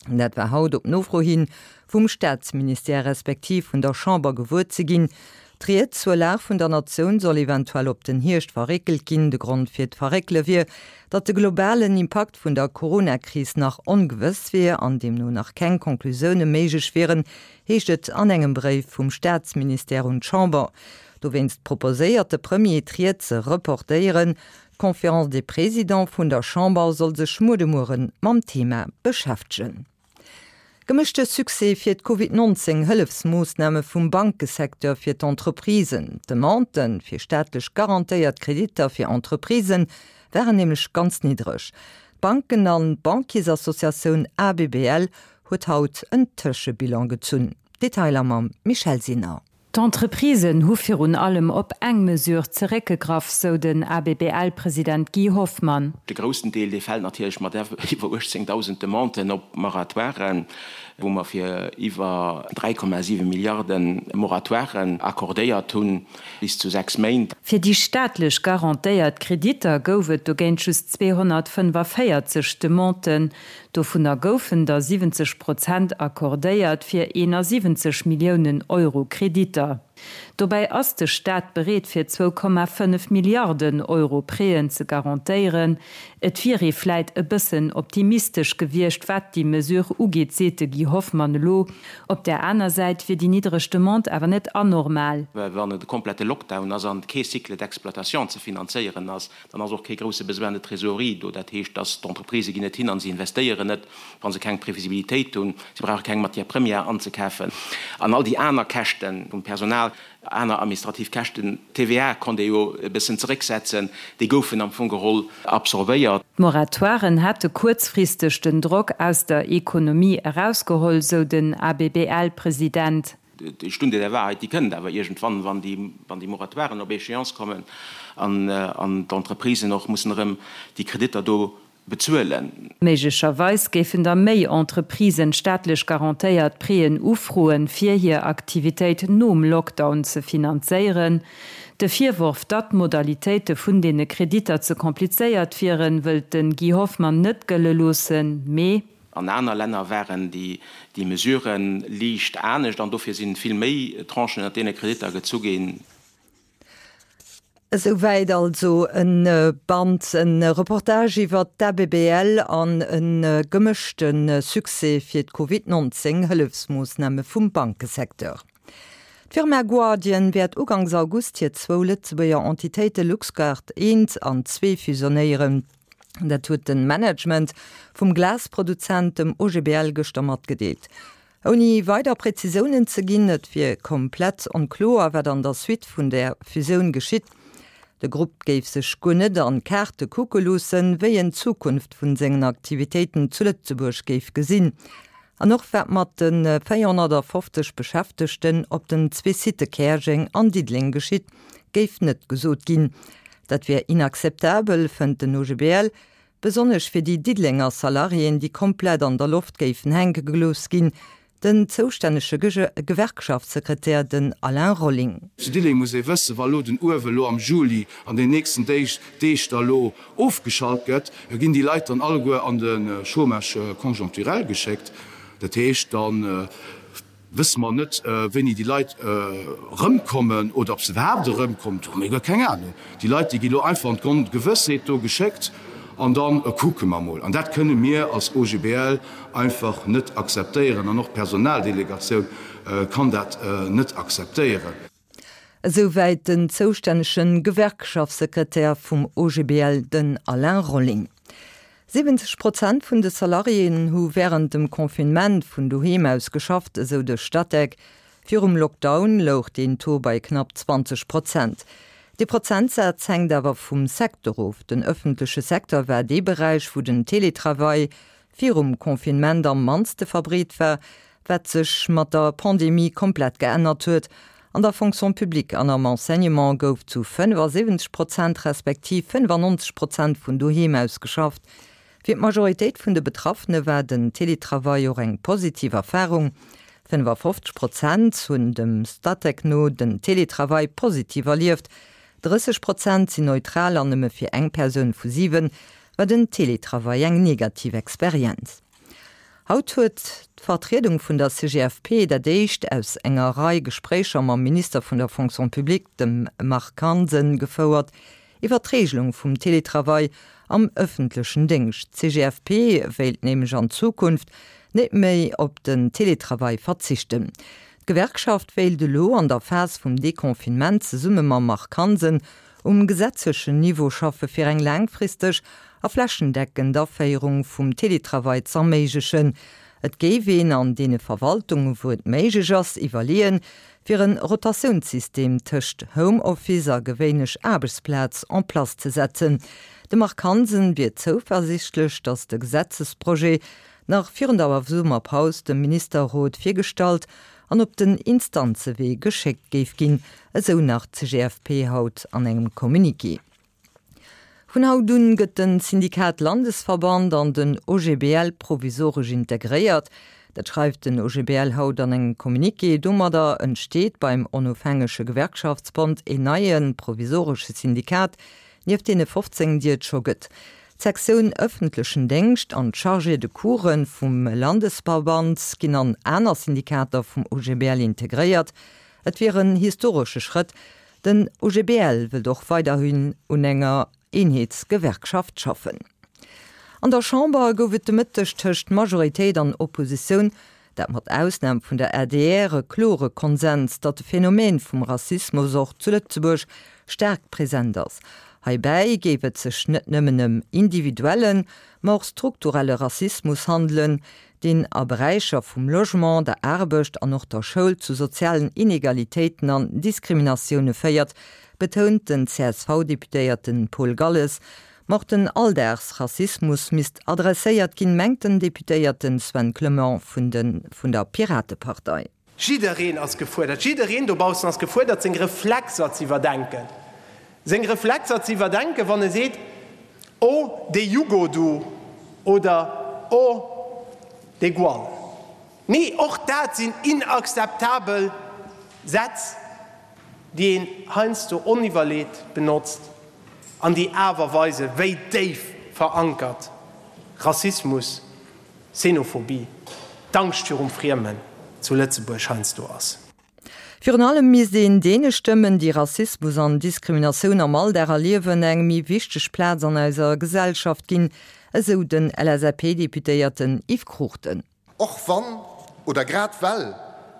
Dat war haut op Nofro hi vum Staatsministère respektiv vun der Chamber gewuer ze ginn. D'Ried zur Lag vun der Natioun soll eventuell op den Hierscht verréckelt ginn. De Grond fir d'Verréckele wier, datt de globalen Impakt vun der Corona-Kris nach ongewëss wier an deemno nach keng Conclusioune méiglech wieren, heescht et an engem Bréif vum Staatsministère un d'Chamber. Dowéinst proposéiert de Premier, d'Ried ze reportéieren. D'Conférence des Présidents vun der Chamber soll sech muer de Muere mam Thema beschäftegen. Gemëschte Succès fir d'Covid 19 Hëllefsmoossname vum Bankesecteur fir d'Entreprisen. D'Demande fir staatlech garantéiert Kreditter fir Entreprisë waren nämlech ganz niddreg. D'Banken an d'Bankiersassociatioun ABBL huet haut en Tëschebilan gezunn. Detailer mam Michèle Sinner. D'Entreprisen hu virun allem op eng Mesure zeréckgegraff, sou den ABBL-President Guy Hoffmann. De groussen Deel, dee fält natierlech mat iwwer 18.000 Demanden op Moratoiren, wou mer fir iwwer 3,7 Milliarde Moratoiren accordéiert hunn, bis zu 6 Méint. Fir déi staatlech garantéiert Kreditter gouf et dogéint just 245 Demanden. Dovunner goufen der 70 Prozent accordéiert fir 71 Milliounen Euro Kreditter. Dobäi ass de Staat bereet fir 2,5 Milliarden Euro Prêten ze garantéieren. Et wier ee vläit e bëssen optimistesch gewiescht, wat déi Mesure ugeet, seet de Guy Hoffmann elo. Op där aner Säit wier déi niddreg Demande awer net anormal. Well wann et e komplette Lockdown ass an kee Cycle d'exploitation ze finanzéieren ass, Dann ass och kee grousse Besoin de trésorerie do. Dat heescht, dass d'Entreprisë ginn net hin a se investéieren net, wa se keng Previsibilitéit hunn. Si brauche keng Matière première anzekafen an all déi aner Käschte vum Personal, aner administrativ Käschten. D'TVA konnt ee jo e bëssen zerécksetzen, déi goufen am Fong geholl absorbéiert. D'Moratoiren hätte kuerzfristeg den Drock aus der Ekonomie erausgeholl, sou den ABBL-President. Déi Stunde der Wahrheit, déi kënnt awer iergendwann, wann déi, wann déi Moratoiren op Échéance kommen an, an d'Entreprisen och mussen erëm déi Kreditter do bezuelen. Méiglecherweis géifen da méi Entreprisen staatlech garantéiert Prêten ufroen, fir hir Aktivitéit nom Lockdown ze finanzéieren. De Virworf, datt d'Modalitéite vun deene Kreditter ze komplizéiert wieren, wëllt de Guy Hoffmann net gëlle loossen, mee. An aner Länner waren déi Mesurë liicht anescht an dofir si vill méi Tranchen ënnert deene Kreditter gezu ginn. Esouwäit also e Band, e Reportage iwwer d'ABBL an e gemëschte Succès fir d'Covid 19 Hëllefsmoossname vum Bankesecteur. D'Firma Guardian wäert ugangs August hir zwou Lëtzebuerger Entitéite Luxguard I an ii fusionéieren. Dat huet de Management vum Glasproduzent, dem OGBL, gëschter matgedeelt. Ouni weider Präzisiounen ze ginn, et wier komplett onkloer, wat an der Suite vun der Fusioun geschitt. De Grupp géif sech guer net an d'Kaarte kucke loossen, wéi en d'Zukunft vun sengen Aktivitéiten zu Lëtzebuerg géif gesinn. An och wat mat de 450 Beschäftegten op den zwee Sitte Käerjeng an Diddeleng geschitt, géif net gesot ginn. Dat wier inakzeptabel, fënnt den OGBL, besonnesch fir déi Diddelenger Salariéen, déi komplett an der Loft géifen hänke gelooss ginn. Den zoustännege Gewerkschaftssekretär, den Alain Rolling. Zu Diddeleng muss ee wëssen, wa lo den Uewe lo am Juli an den nächsten Deeg Deeg da lo ofgeschalt gëtt, ginn déi Leit dann alleguer an de Chômage conjoncturel geschéckt. Dat heescht, da wësse mer net, wéini déi Leit erëmkommen oder ob se iwwerhaapt erëmkommen. Do hu mir guer keng Anung. Déi Leit, déi gi lo einfach an d'Ongewëssheet do geschéckt an da kucke mer mol. An dat kënne mir als OGBL einfach net akzeptéieren an och d'Personaldelegatioun kann dat net akzeptéieren. Esouwäit den zoustännege Gewerkschaftssekretär vum OGBL, den Alain Rolling. 70 Prozent vun de Salariéen hu wärend dem Confinement vun doheem aus geschafft, esou de Statec. Virum Lockdown louch deen Taux bei knapp 20 Prozent. Dee Prozentsaz hänkt awer vum Secteur of. Den ëffentleche Secteur war dee Beräich, wou den Teletravail virum Confinement am mannste verbreet war, wat sech mat der Pandemie komplett geännert huet. An der Fonction publique an am Enseignement gouf zu 75 Prozent respektiv 95 Prozent vun doheem aus geschafft. Fir d'Majoritéit vun de Betraffene war den Teletravail och eng positiv Erfarung. 55 Prozent hunn dem Statec no den Teletravail positiv erlieft, 30 Prozent sinn neutral an nëmme fir eng Persoun vu 7 war den Teletravail eng negativ Experienz. Haut huet d'Vertriedung vun der CGFP dat éischt aus enger Rei Gespréicher mam Minister vun der Fonction publique, dem Marc Hansen, gefouert iwwer d'Regelung vum Teletravail am ëffentlechen Déngscht. D'CGFP wéilt nämlech an Zukunft net méi op den Teletravail verzichten. D'Gewerkschaft wéilt elo an der Phas vum Deconfinement zesumme mam Marc Hansen um gesetzlechen Niveau schaffe fir eng laangfristeg a flächendeckend Aféierung vum Teletravail z'erméiglechen. Et géif een an deene Verwaltungen, wou et méiglech ass, iwwerleeën, fir en Rotatiounssystem tëscht Homeoffice a gewéinlech Aarbechtsplaz en place ze setzen. De Marc Hansen wier zouversichtlech, datt de Gesetzesprojet nach virun der Summerpaus dem Ministerrot virgestallt an op den Instanzewee geschéckt géif ginn, esou nach d'CGFP haut an engem Communiqué. Vun haut un gëtt den Syndikat Landesverband an den OGBL provisoresch integréiert. Dat schreift den OGBL haut an engem Communiqué. Domadder entsteet beim onofhängege Gewerkschaftsbond een neie provisoresche Syndikat, nieft deene 15, déi et scho gëtt. D'Sektioun ëffentlechen Déngscht an d'Chargés de coursen vum Landesverband ginn an aner Syndikater vum OGBL integréiert. Et wier en historesche Schrëtt. Den OGBL wëllt och weiderhin un enger Eenheetsgewerkschaft schaffen. An der Chamber gouf et de Mëtteg tëscht Majoritéit an Oppositioun Dat mat Ausnam vun der adr, e klore Konsens, datt de Phänomen vum Rassismus och zu Lëtzebuerg staark present ass. Heibäi géif et sech net nëmmen ëm individuellen, ma och strukturelle Rassismus handelen, deen a Beräicher vum Logement, der Aarbecht an och der Schoul zu sozialen Inegalitéiten an Diskriminatioune féiert, betount den CSV-Deputéierte Paul Galles. Ma och den Alldagsrassismus misst adresséiert ginn, mengt den Deputéierte Sven Clement vun de vun der Piratepartei. Jiddereen ass gefuerdert, jiddereen dobaussen ass gefuerdert, seng Reflexer ze iwwerdenken. Seng Reflexer ze iwwerdenken, wann e seet, Oh, dee Jugo do oder Oh, dee Gual. Nee, och dat sinn inakzeptabel Sätz, déi een heiansdo oniwwerleet benotzt an déi awer weisen, wéi déif verankert Rassismus, Xenophobie, d'Angscht virum Friemen zu Lëtzebuerg heiansdo ass. Virun allem misst een deene Stëmmen, déi Rassismus an Diskriminatioun am Alldag erliewen, eng méi wichteg Plaz an eiser Gesellschaft ginn, esou den LSAP-Deputéierten Yves Cruchten. Och wann, oder grad well,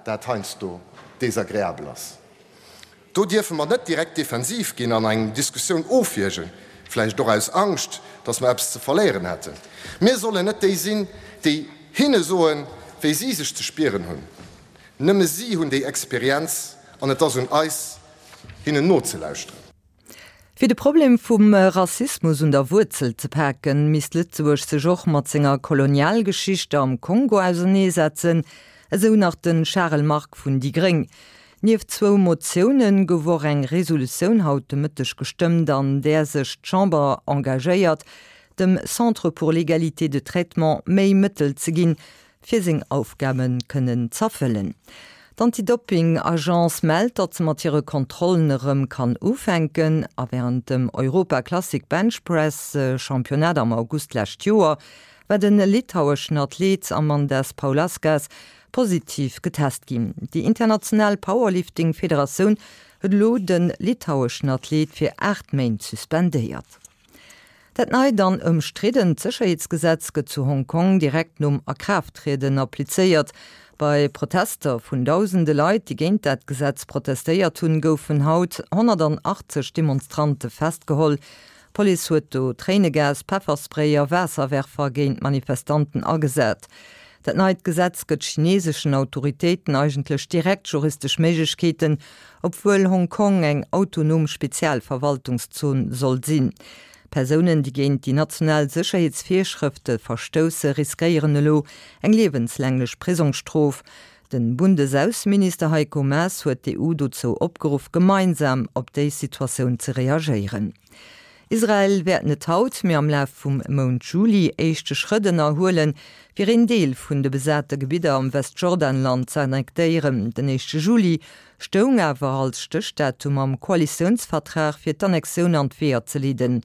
dat heiansdo desagreabel ass. Do dierfe mer net direkt defensiv ginn an eng Diskussioun ofwiergen, vläicht och aus Angscht, dass mer eppes ze verléieren hätten. Mir sollen net déi sinn, déi hinne soen, wéi si sech ze spieren hunn. Nëmme si hunn déi Experienz an et ass un eis, hinnen nozelauschteren. Fir de Problem vum Rassismus un der Wuerzel ze paken, misst Lëtzebuerg sech och mat senger Kolonialgeschicht am Kongo auserneesetzen, esou nach de Charel Margue vun déi gréng. Nieft zwou Motioune gouf och eng Resolutioun haut de Mëtteg gestëmmt, an där sech d'Chamber engagéiert, dem Centre pour l'égalité de traitement méi Mëttel ze ginn, fir seng Aufgabe kënnen z'erfëllen. D'Anti-Dopping-Agence mellt, datt se mat hire Kontrollen erëm kann ufänken. A wärend dem Europa Classic Bench Press Championnat am August d'lescht Joer war de litaueschen Athlet Amandas Paulauskas positiv getest ginn. Déi international Powerlifting Federatioun huet elo de litaueschen Athlet fir 8 Méint suspendéiert. Dat neit an ëmstriddent Sécherheetsgesetz gëtt zu Hong Kong direkt nom Akraafttrieden applizéiert. Bei Protester vun dausende Leit, déi géint dat Gesetz protestéiert hunn, goufen haut 180 Demonstrante festgeholl. D'Police huet do Tréinegas, Pefferspray a Waasserwerfer géint d'Manifestanten agesat. Dat neit Gesetz gëtt chineseschen Autoritéiten eigentlech direkt juristesch Méiglechkeeten, obwuel Hong Kong eng autonom Spezialverwaltungszon soll sinn. Persounen, déi géint déi national Sécherheetsvirschrëfte verstousse, riskéieren elo eng liewenslänglech Prisongsstrof. Den Bundesausseminister Heiko Maas huet d'EU dozou opgeruff, gemeinsam op déi Situatioun ze reagéieren. Israel wäert net haut, mee am Laf vum Mount Juli éischte Schrëtt ënnerhuelen, fir een Deel vun de besate Gebidder am Westjordanland ze annektéieren. Den éischte Juli stoung awer als Stéchdatum am Koalitiounsvertrag fir d'Annexioun an d'Weeër ze leeden.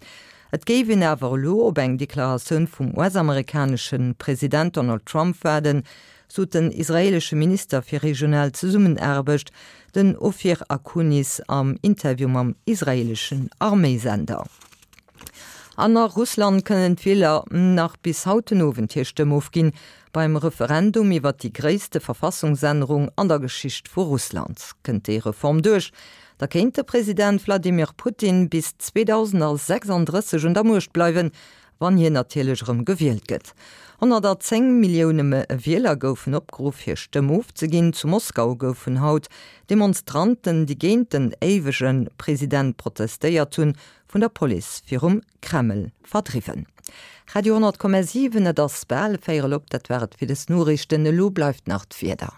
Et géif een awer elo op eng Deklaratioun vum US-amerikanesche President Donald Trump waarden, sot den israeelesche Minister fir regional Zesummenaarbecht, den Ofir Akunis, am Interview mam israeeleschen Arméisender. An a Russland kënnen d'Wieler nach bis haut den Owend hir Stëmm ofginn beim Referendum iwwer déi gréisste Verfassungsännerung an der Geschicht vu Russland. Kënnt déi Reform duerch, da kéint de President Wladimir Putin bis 2036 un der Muecht bleiwen, wann hien natierlech erëm gewielt gëtt. 110 Millioune Wieler goufen opgeruff hir Stëmm ofzeginn. Zu Moskau goufen haut Demonstranten, déi géint den éiwege President protestéiert hunn, vun der Police virum Kreml verdriwwen. Radio 10,7 Et ass bal véierel op, dat war et fir des Noriichten. Elo bleift nach d'Wieder.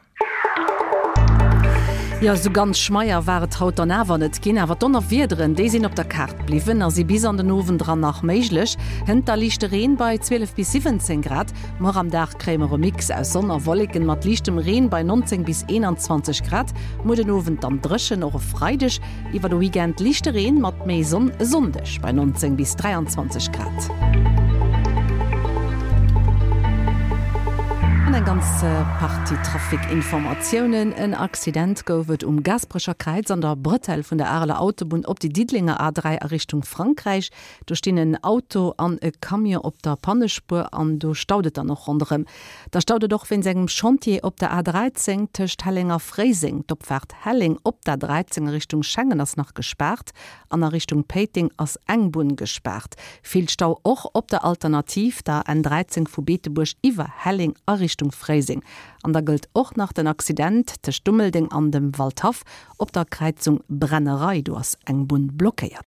Jo, esou ganz schmeier war et haut dann awer net ginn, awer d'Donnerwiederen, déi sinn op der Kaart bliwwen a si bis an den Owend eran nach méiglech. Hënt da liichte Reen bei 12 bis 17 Grad. Muer am Dag kréie mer e Mix aus Sonn a Wolleken mat liichtem Reen bei 19 bis 21 Grad. Muer den Owend dann dréchen, och e Freideg Iwwer de Weekend liichte Reen mat méi Sonn e Sonndeg bei 19 bis 23 Grad. An eng ganz Partie Trafic-Informatiounen. En Accident gouf et um Gaasperecher Kräiz an der Bretelle vun der Areler Autobunn op déi Diddelenger A3 a Richtung Frankräich. Do stinn en Auto an e Camion op der Pannespuer an do staut et dann och ronderëm. Da staut et och wéinst engem Chantier op der A13 tëscht Helleng a Fréiseng. D'Opfaart Helleng op der 13 a Richtung Schengen ass nach gespaart an a Richtung Péiteng ass eng Bunn gespaart. Vill Stau och op der Alternativ, der N13 vu Beetebuerg iwwer Helleng a Richtung Fréiseng. An da gëllt och nach den Accident tëscht Dummeldeng an dem Waldhaff op der Kräizung Brennerei. Do ass eng Bunn blockéiert.